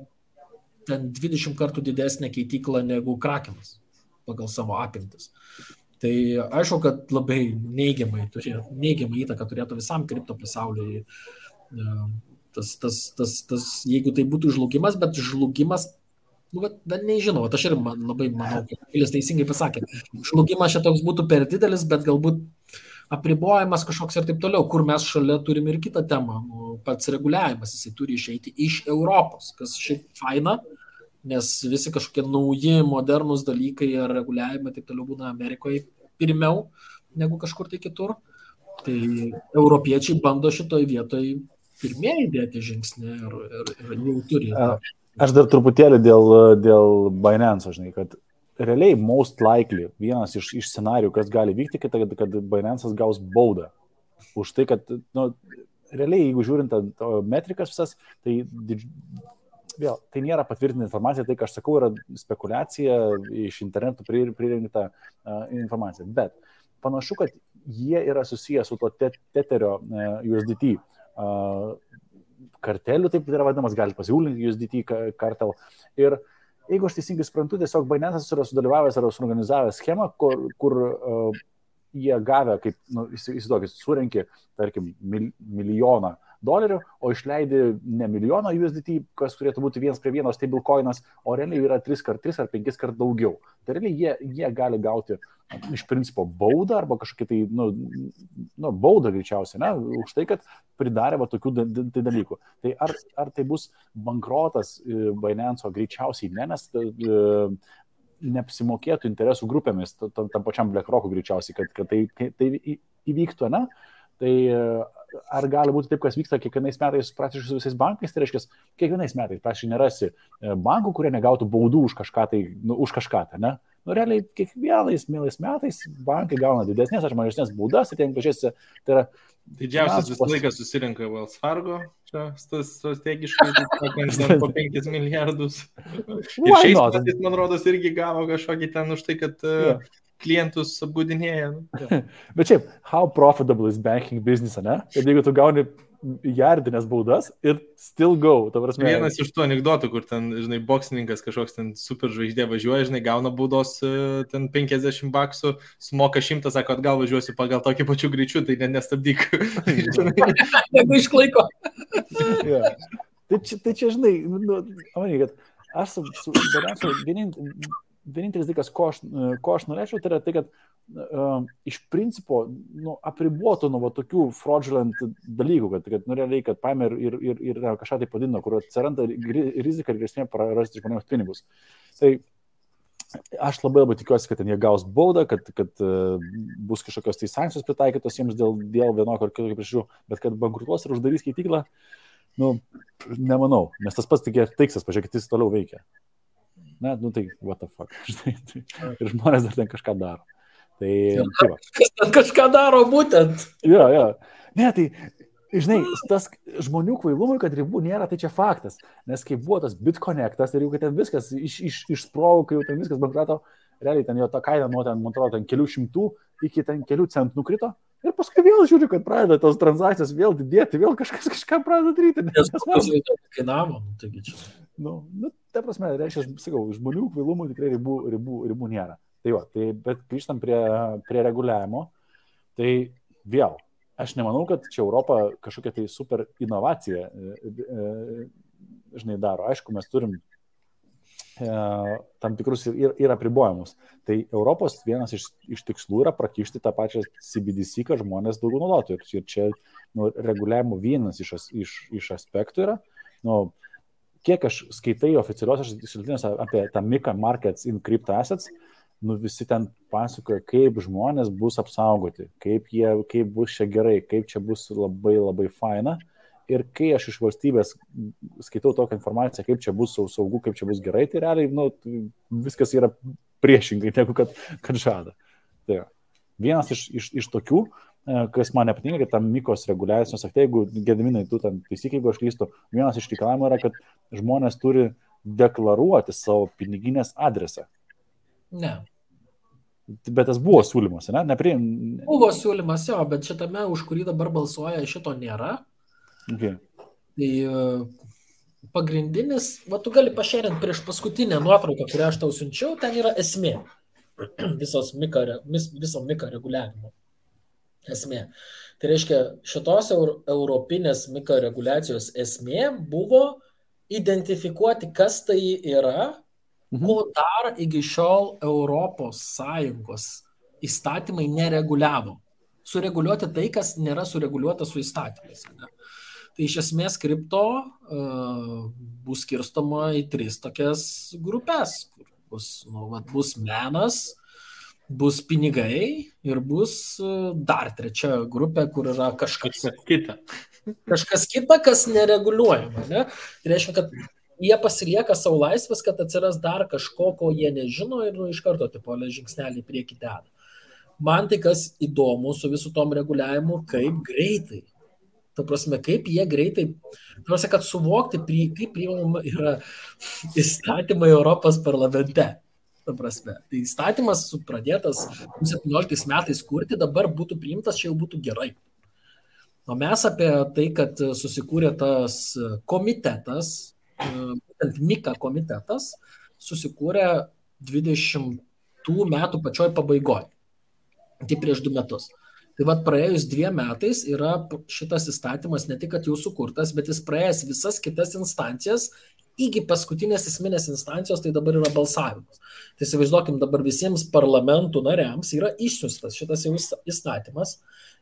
Speaker 4: ten 20 kartų didesnė keitykla negu Krakenas pagal savo apimtis. Tai aišku, kad labai neigiamą įtaką turėtų visam kripto pasauliui. Jeigu tai būtų žlugimas, bet žlugimas nežinau, aš ir labai manau, kad Vilis teisingai pasakė, žlugimas čia toks būtų per didelis, bet galbūt apribojimas kažkoks ir taip toliau, kur mes šalia turim ir kitą temą, pats reguliavimas, jisai turi išeiti iš Europos, kas šiaip faina, nes visi kažkokie nauji, modernus dalykai ir reguliavimai taip toliau būna Amerikoje pirmiau negu kažkur tai kitur, tai europiečiai bando šitoj vietoj pirmieji dėti žingsnį ir jau turi.
Speaker 2: Aš dar truputėlį dėl Binance, žinai, kad realiai most likely vienas iš scenarijų, kas gali vykti, kad Binance'as gaus baudą. Už tai, kad, realiai, jeigu žiūrint metrikas visas, tai vėl, tai nėra patvirtinta informacija, tai, ką aš sakau, yra spekulacija iš interneto pririnkta informacija. Bet panašu, kad jie yra susiję su to Tetherio USDT karteliu, taip yra vadinamas, gali pasiūlinti USDT kartel. Ir jeigu aš teisingai suprantu, tiesiog Binance'as yra sudalyvavęs ar suorganizavęs schemą, kur jie gavę, kaip, įsivaizduokit, surenki, tarkim, $1,000,000, o išleidi ne milijoną USDT, kas turėtų būti 1:1 stablecoinas, o realiai yra 3 ar 5 kart daugiau. Tai realiai jie gali gauti iš principo baudą arba kažkokį tai, baudą greičiausiai, ne, už tai, kad pridarė tokių dalykų. Tai ar tai bus bankrotas Binance'o greičiausiai ne, nes neapsimokėtų interesų grupėmis, tam pačiam BlackRock'u greičiausiai, kad tai įvyktų, ne? Tai ar gali būti taip, kas vyksta kiekvienais metais praktiškai su visais bankais, tai reiškia, kiekvienais metais praktiškai nerasi bankų, kurie negautų baudų už kažką tai, ne? Realiai kiekvienais metais bankai gauna didesnės ar mažesnės baudas, ir ten pažiūrėsi, tai yra
Speaker 3: didžiausias visą laiką susirinka Wells Fargo, čia strategiškai, po 5 milijardus. Ir šiais metais, man rodos, irgi gavo kažkokį ten už tai, kad klientus apgaudinėja.
Speaker 2: Bet šiaip, how profitable is banking business, ne? Kad jeigu tu gauni jardinės baudas ir still go, ta prasme.
Speaker 3: Vienas iš tų anekdotų, kur ten, žinai, boksininkas kažkoks ten super žvaigždė važiuoja, žinai, gauna baudos ten $50, sumoka 100, sako, atgal važiuosiu pagal tokį pačių greičių, tai nestabdyk.
Speaker 4: Jeigu išlaiko.
Speaker 2: Tai čia, žinai, kad aš su Binance'u vienintelis dalykas, ko aš norėčiau, tai yra tai, kad iš principo apribuotų nuo tokių fraudulent dalykų, kad realiai, kad paėmė ir kažką tai padidino, kur atsiranda rizika ir grėsmė prarasti žmonėms pinigus. Tai aš labai tikiuosi, kad jie gaus baudą, kad bus kažkokios tai sankcijos pritaikytos jiems dėl vienokio ar kitokio priežasčių, bet kad bankrutuos ir uždarys skaityklą, nemanau, nes tas pats tik teiksas, pažiūrėkit, jis toliau veikia. Ne, tai what the fuck. Ir žmonės dar ten kažką daro.
Speaker 4: Kas ten kažką daro būtent?
Speaker 2: Jo. Ne, tai, žinai, tas žmonių kvailumui, kad ribų nėra, tai čia faktas. Nes kai buvo tas BitConnectas ir jau kad ten viskas išsprogo, kai jau ten viskas bankruto, realiai ten jo ta kaina nuo ten, man atrodo, ten kelių šimtų iki ten kelių centų nukrito. Ir paskui vėl žiūriu, kad pradeda tos transakcijos vėl didėti, vėl kažkas kažką pradeda daryti.
Speaker 4: Nes kainavo, taigi čia.
Speaker 2: Ta prasme, reiškia, sakau, žmonių kvailumų tikrai ribų nėra. Tai jo, bet grįžtam prie reguliavimo, tai vėl, aš nemanau, kad čia Europa kažkokia tai super inovacija, žinai, daro. Aišku, mes turim tam tikrus ir apribojimus. Tai Europos vienas iš tikslų yra prakišti tą pačią CBDC, kad žmonės daugiau naudotų. Ir čia reguliavimo vienas iš aspektų yra, kiek aš skaitai oficialiuosios šaltiniuose apie tą MiCA Markets in Crypto Assets, visi ten pasakoja, kaip žmonės bus apsaugoti, kaip bus čia gerai, kaip čia bus labai labai faina. Ir kai aš iš valstybės skaitau tokią informaciją, kaip čia bus saugu, kaip čia bus gerai, tai realiai viskas yra priešingai, negu kad žada. Tai vienas iš tokių, kas man nepatinka, kad tam MiCos reguliacijos akte, jeigu Gediminai, tu ten taisyk, jeigu aš klystu, vienas iš reikalavimų yra, kad žmonės turi deklaruoti savo piniginės adresą.
Speaker 4: Ne.
Speaker 2: Bet tas buvo siūlymas, ne?
Speaker 4: Buvo siūlymas, jo, bet šitame, už kurį dabar balsuoja, šito nėra.
Speaker 2: Okay.
Speaker 4: Tai pagrindinis, tu gali pašėrinti prieš paskutinę nuotrauką, kurią aš tau siunčiau, ten yra esmė. Viso MiCA reguliavimo esmė. Tai reiškia, šitos europinės MiCA reguliacijos esmė buvo identifikuoti, kas tai yra, ko dar iki šiol Europos Sąjungos įstatymai nereguliavo. Sureguliuoti tai, kas nėra sureguliuota su įstatymais. Ne? Tai iš esmės kripto bus skirstoma į 3 tokias grupės, kur bus menas, bus pinigai ir bus dar 3 grupė, kur yra kažkas kita. Kažkas kita, kas nereguliuojama. Ne? Tai reiškia, kad jie pasilieka savo laisvės, kad atsiras dar kažko, ko jie nežino ir iš karto tipo žingsnelį į priekį deda. Man tai kas įdomu su visų tom reguliavimu, kaip greitai. Ta prasme, kaip jie greitai, ta prasme, kad suvokti, kaip priimama yra įstatymai Europos parlamente. Ta prasme, tai įstatymas pradėtas 17 metais kurti, dabar būtų priimtas, čia jau būtų gerai. O mes apie tai, kad susikūrė tas komitetas, būtent MIKA komitetas, susikūrė 20 metų pačioj pabaigoje. Tai prieš 2 metus. Tai vat praėjus 2 metais yra šitas įstatymas ne tik, kad jau sukurtas, bet jis praėjęs visas kitas instancijas, iki paskutinės esminės instancijos, tai dabar yra balsavimas. Tai įsivaizduokim, dabar visiems parlamentų nariams yra išsiųstas šitas jau įstatymas,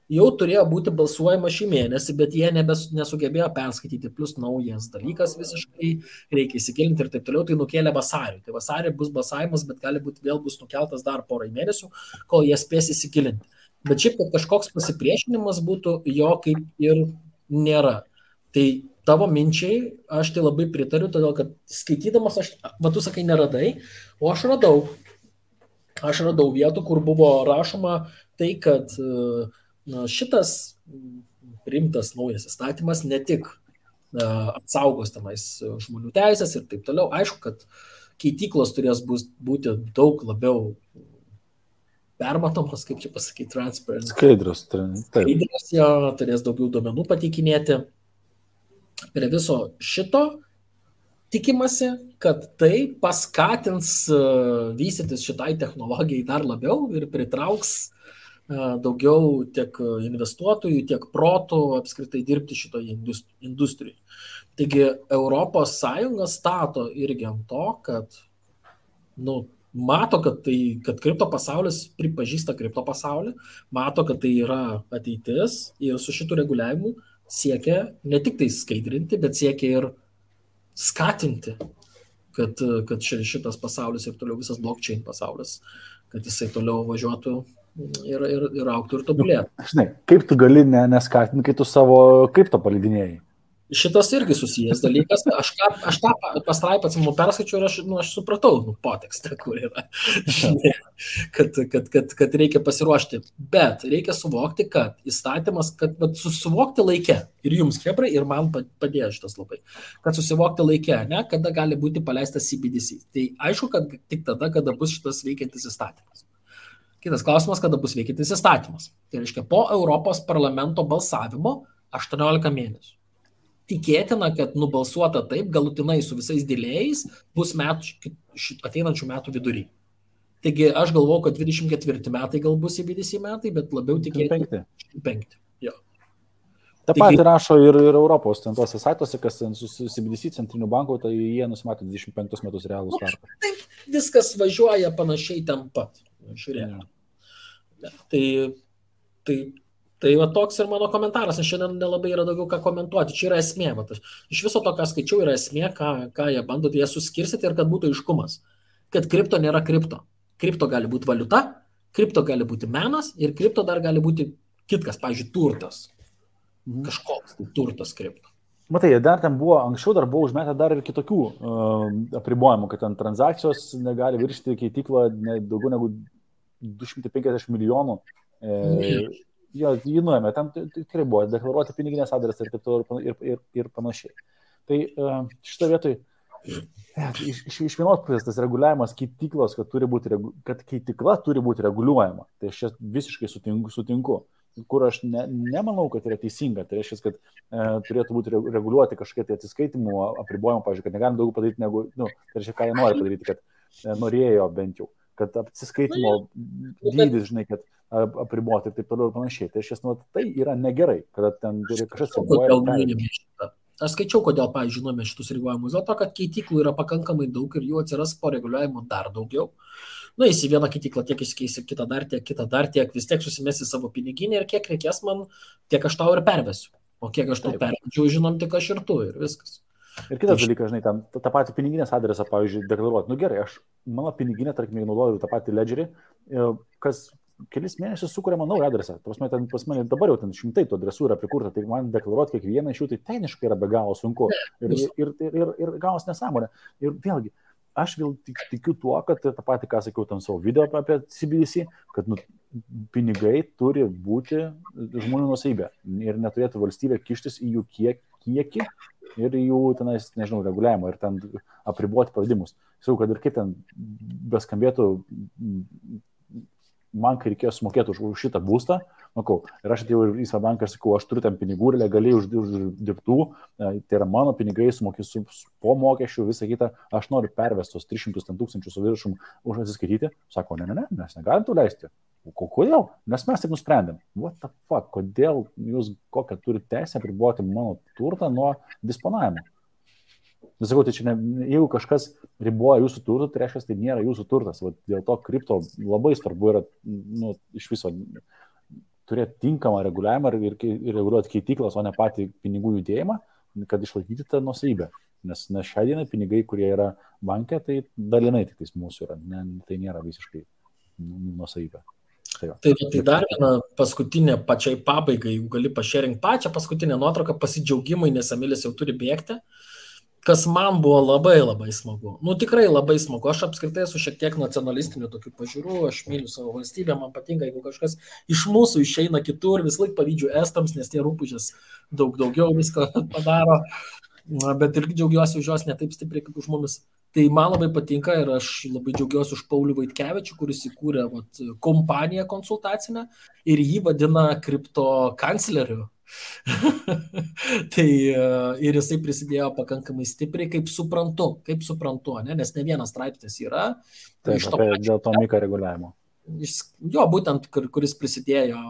Speaker 4: jau turėjo būti balsuojama šį mėnesį, bet jie nesugebėjo perskaityti, plus naujas dalykas visiškai, reikia įsigilinti ir taip toliau, tai nukėlė vasarį. Tai vasarį bus balsavimas, bet gali būti vėl bus nukeltas dar porai mėnesių, kol jie spės įsigilinti. Bet šiaip, kad kažkoks pasipriešinimas būtų, jo kaip ir nėra. Tai tavo minčiai, aš tai labai pritariu, todėl kad skaitydamas, tu sakai, neradai, o aš radau vietų, kur buvo rašoma tai, kad šitas priimtas naujas įstatymas ne tik apsaugos tenais žmonių teisės ir taip toliau. Aišku, kad keityklos turės būti daug labiau permatomas, kaip čia pasakyti, transparent.
Speaker 2: Skaidrus,
Speaker 4: jo, turės daugiau duomenų pateikinėti. Prie viso šito tikimasi, kad tai paskatins vystytis šitai technologijai dar labiau ir pritrauks daugiau tiek investuotojų, tiek protų apskritai dirbti šitoje industrijoje. Taigi Europos Sąjunga stato irgi ant to, kad mato, kad kripto pasaulis pripažįsta kripto pasaulį, mato, kad tai yra ateitis ir su šitų reguliavimu siekia ne tik tai skaidrinti, bet siekia ir skatinti, kad šitas pasaulis ir toliau visas blockchain pasaulis, kad jisai toliau važiuotų ir auktų ir tobulėtų.
Speaker 2: Žinai, kaip tu gali neskatinti, kai tu savo kripto paleidinėjai?
Speaker 4: Šitas irgi susijęs dalykas. Aš tą pastraipą atsimu perskaičiau ir aš supratau potekstą, kur yra. kad reikia pasiruošti. Bet reikia suvokti, kad įstatymas, kad susivokti laike, ir jums, chebrai, ir man padėjo šitas labai, kad susivokti laike, kada gali būti paleistas CBDC. Tai aišku, kad tik tada, kada bus šitas veikiantis įstatymas. Kitas klausimas, kada bus veikiantis įstatymas. Tai reiškia, po Europos parlamento balsavimo 18 mėnesių. Tikėtina, kad nubalsuota taip, galutinai su visais dėlėjais, bus ateinančių metų vidury. Taigi aš galvoju, kad 24 metai gal bus CBDC metai, bet labiau tikėtina 25. Jo.
Speaker 2: Ta pati rašo ir Europos tose saituose, kas su CBDC centriniu banku, tai jie nusimato 25 metus realų startą.
Speaker 4: Taip, viskas važiuoja panašiai ten pat. Žiūrėjau. Tai va toks ir mano komentaras, aš šiandien nelabai yra daugiau ką komentuoti, čia yra esmė, iš viso to, ką skaičiau, yra esmė, ką jie bando, jie suskirstyti ir kad būtų aiškumas, kad kripto nėra kripto. Kripto gali būti valiuta, kripto gali būti menas ir kripto dar gali būti kitkas, pavyzdžiui, turtas. Kažkoks turtas kripto.
Speaker 2: Matai, dar ten buvo, anksčiau dar buvo užmetę dar ir kitokių apribojimų, kad ten transakcijos negali viršti keityklą daugiau negu 250 milijonų. Jo, jį nuėmė, tam tikrai buvo deklaruoti piniginės adresą ir taip toliau ir panašiai. Tai šitą vietoj, iš vienos pusės tas reguliavimas keityklos, kad keitykla turi būti reguliuojama. Tai aš čia visiškai sutinku. Kur aš nemanau, kad yra teisinga. Tai reiškia, kad turėtų būti reguliuoti kažkokie tai atsiskaitimų apribojimų, pavyzdžiui, kad negalim daugiau padaryti negu, tai reiškia, ką jie nori padaryti, kad norėjo bent jau, kad atsiskaitimo dydis, žinai, kad apriboti ir taip toliau ir panašiai. Tai tai yra negerai, kad ten turi kažkas
Speaker 4: reguliuoja. Aš skaičiau, kodėl, pavyzdžiui, žinome šitus reguliavimus, dėl to, kad keityklų yra pakankamai daug ir jų atsiras po reguliavimo dar daugiau. Į vieną keityklą tiek išsikeisi, kitą dar tiek, vis tiek susimesi savo piniginį ir kiek reikės man, tiek aš tau ir pervesiu. O kiek aš tau pervedžiau, žinom, tik aš ir tu ir viskas.
Speaker 2: Ir kitas dalykas, žinai, tą patį piniginės adresą, pavyzdžiui, deklaruoti. Gerai, aš mano piniginę, tarkim, naudoju tą patį ledgerį, kas kelis mėnesius sukūrėma naują adresą. Ten pas mane dabar jau ten 100 tų adresų yra prikurta, tai man deklaruoti kiekvieną iš jų, tai techniškai yra be galo sunku. Ir gaus nesąmonė. Ir vėlgi, aš vėl tikiu tuo, kad tą patį, ką sakiau tam savo video apie CBDC, kad pinigai turi būti žmonių nuosavybė ir neturėtų valstybė kištis į jų kiekį ir jų tenais, nežinau, reguliavimą ir ten apriboti pavadimus. Sakau, kad ir kaip ten beskambėtų, man kai reikėjo sumokėti už šitą būstą, ir aš atėjau į Svedbanką ir sakau, aš turiu ten pinigų ir legaliai uždirbtų, tai yra mano pinigai, sumokėsiu po mokesčių, visą kitą, aš noriu pervestos 300 tūkstančių su viršum už atsiskaityti. Sako, ne, mes negalim tų leisti. Kodėl? Nes mes taip nusprendėm. What the fuck, kodėl jūs kokią turite teisę apriboti mano turtą nuo disponavimo? Nesakau, tai čia jeigu kažkas riboja jūsų turtą, tai reiškia, tai nėra jūsų turtas. Dėl to kripto labai svarbu yra iš viso turėti tinkamą reguliavimą ir reguliuoti keityklas, o ne patį pinigų judėjimą, kad išlaikyti tą nuosavybę. Nes šią dieną pinigai, kurie yra banke, tai dalinai tik tais mūsų yra. Tai nėra visiškai nuosavybė.
Speaker 4: Tai dar viena paskutinė pačiai pabaigai, jeigu gali pašėrinti pačią paskutinę nuotrauką, pasidžiaugimai, nes Emilis jau turi bėgti, kas man buvo labai labai smagu. Tikrai labai smagu. Aš apskritai esu šiek tiek nacionalistinių tokių pažiūrų, aš myliu savo valstybę, man patinka, jeigu kažkas iš mūsų išeina kitur, vis laik pavydžiu estams, nes tie rūpužės daugiau visko padaro, bet irgi džiaugiuosi už jos ne taip stipriai kaip už mumis. Tai man labai patinka ir aš labai džiaugiuosi už Paulių Vaitkevičių, kuris įkūrė kompaniją konsultacinę ir jį vadina kripto kancleriu. Tai ir jisai prisidėjo pakankamai stipriai, kaip suprantu, ne? Nes ne vienas straipsnis yra.
Speaker 2: Taip, dėl to MiCA reguliavimo.
Speaker 4: Jo, būtent, kuris prisidėjo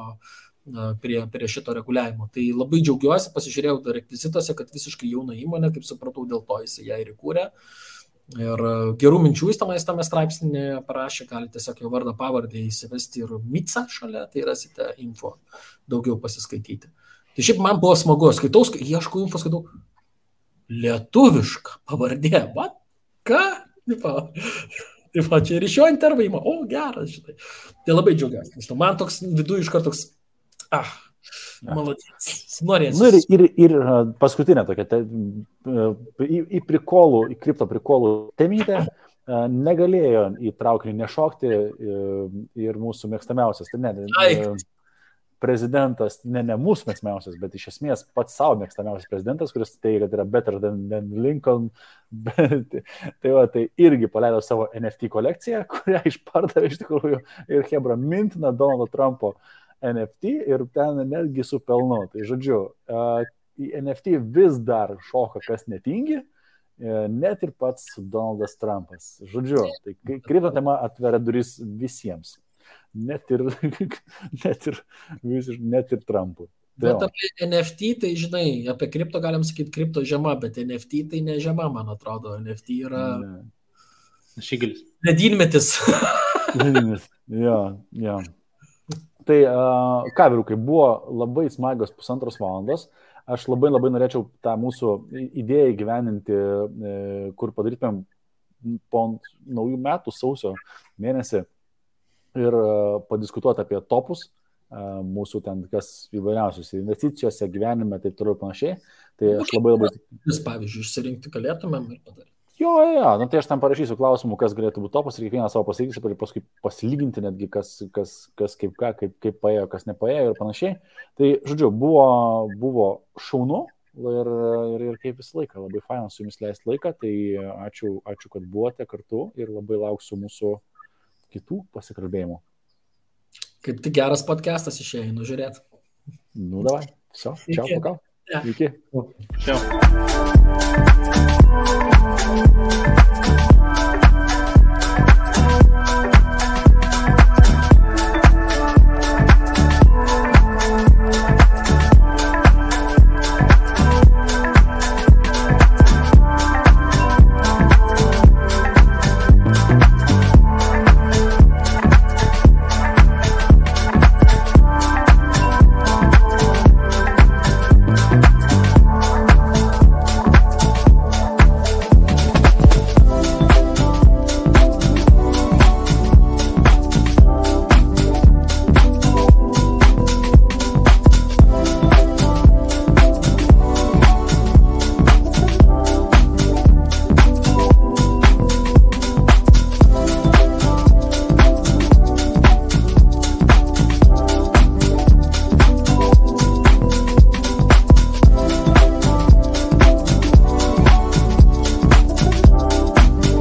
Speaker 4: prie šito reguliavimo. Tai labai džiaugiuosi, pasižiūrėjau dar rekvizitose, kad visiškai jauna įmonė, kaip supratau, dėl to jisai ją ir įkūrė. Ir gerų minčių jis tame straipsnėje parašė, galite tiesiog jo vardą pavardę įsivesti ir MiCA šalia, tai rasite info daugiau pasiskaityti. Tai šiaip man buvo smagu, ieškau info, skaitau lietuviška pavardė, ką? Taip, čia ir iš jo intervaimo, geras, šitai. Tai labai džiaugiuosi. Man toks viduje iš karto toks, malodės, norėsiu.
Speaker 2: Ir paskutinė tokia, į kripto prikolų temytę negalėjo į traukinį nešokti ir mūsų mėgstamiausias. Prezidentas, ne mūsų mėgstamiausias, bet iš esmės pats savo mėgstamiausias prezidentas, kuris teigia, kad yra better than Lincoln. Tai irgi paleido savo NFT kolekciją, kurią išpardavė iš tikrųjų ir hebra mintina Donaldo Trumpo NFT ir ten netgi su pelnu. Tai žodžiu, į NFT vis dar šoka kas netingi, net ir pats Donaldas Trumpas. Žodžiu, tai kripto tema atveria duris visiems. Net ir Trumpui.
Speaker 4: Bet apie NFT, tai žinai, apie kripto galim sakyti kripto žema, bet NFT tai ne žema, man atrodo. NFT yra
Speaker 3: Šigelis.
Speaker 4: Ledynmetis.
Speaker 2: Jo. Tai ką, vyrukai, buvo labai smagios 1,5 valandos. Aš labai norėčiau tą mūsų idėją įgyveninti, kur padarytumėm po naujų metų sausio mėnesį ir padiskutuoti apie topus, mūsų ten kas įvairiausios investicijose, gyvenime, taip toliau panašiai. Tai aš labai...
Speaker 4: Jūs, pavyzdžiui, išsirinkti galėtumėm ir padaryti.
Speaker 2: Jo, tai aš tam parašysiu klausimų, kas galėtų būti topas ir kiekvieną savo pasakysiu, ir paskui pasilyginti netgi, kas kaip paėjo, kas nepaėjo ir panašiai. Tai, žodžiu, buvo šaunu ir kaip visą laiką, labai faina su jumis leisti laiką, tai ačiū, kad buvote kartu ir labai lauksiu mūsų kitų pasikalbėjimų.
Speaker 4: Kaip tik geras podcastas išėjo, žiūrėt.
Speaker 2: Davai. Все, čau, pakal. Iki.
Speaker 3: Ciao.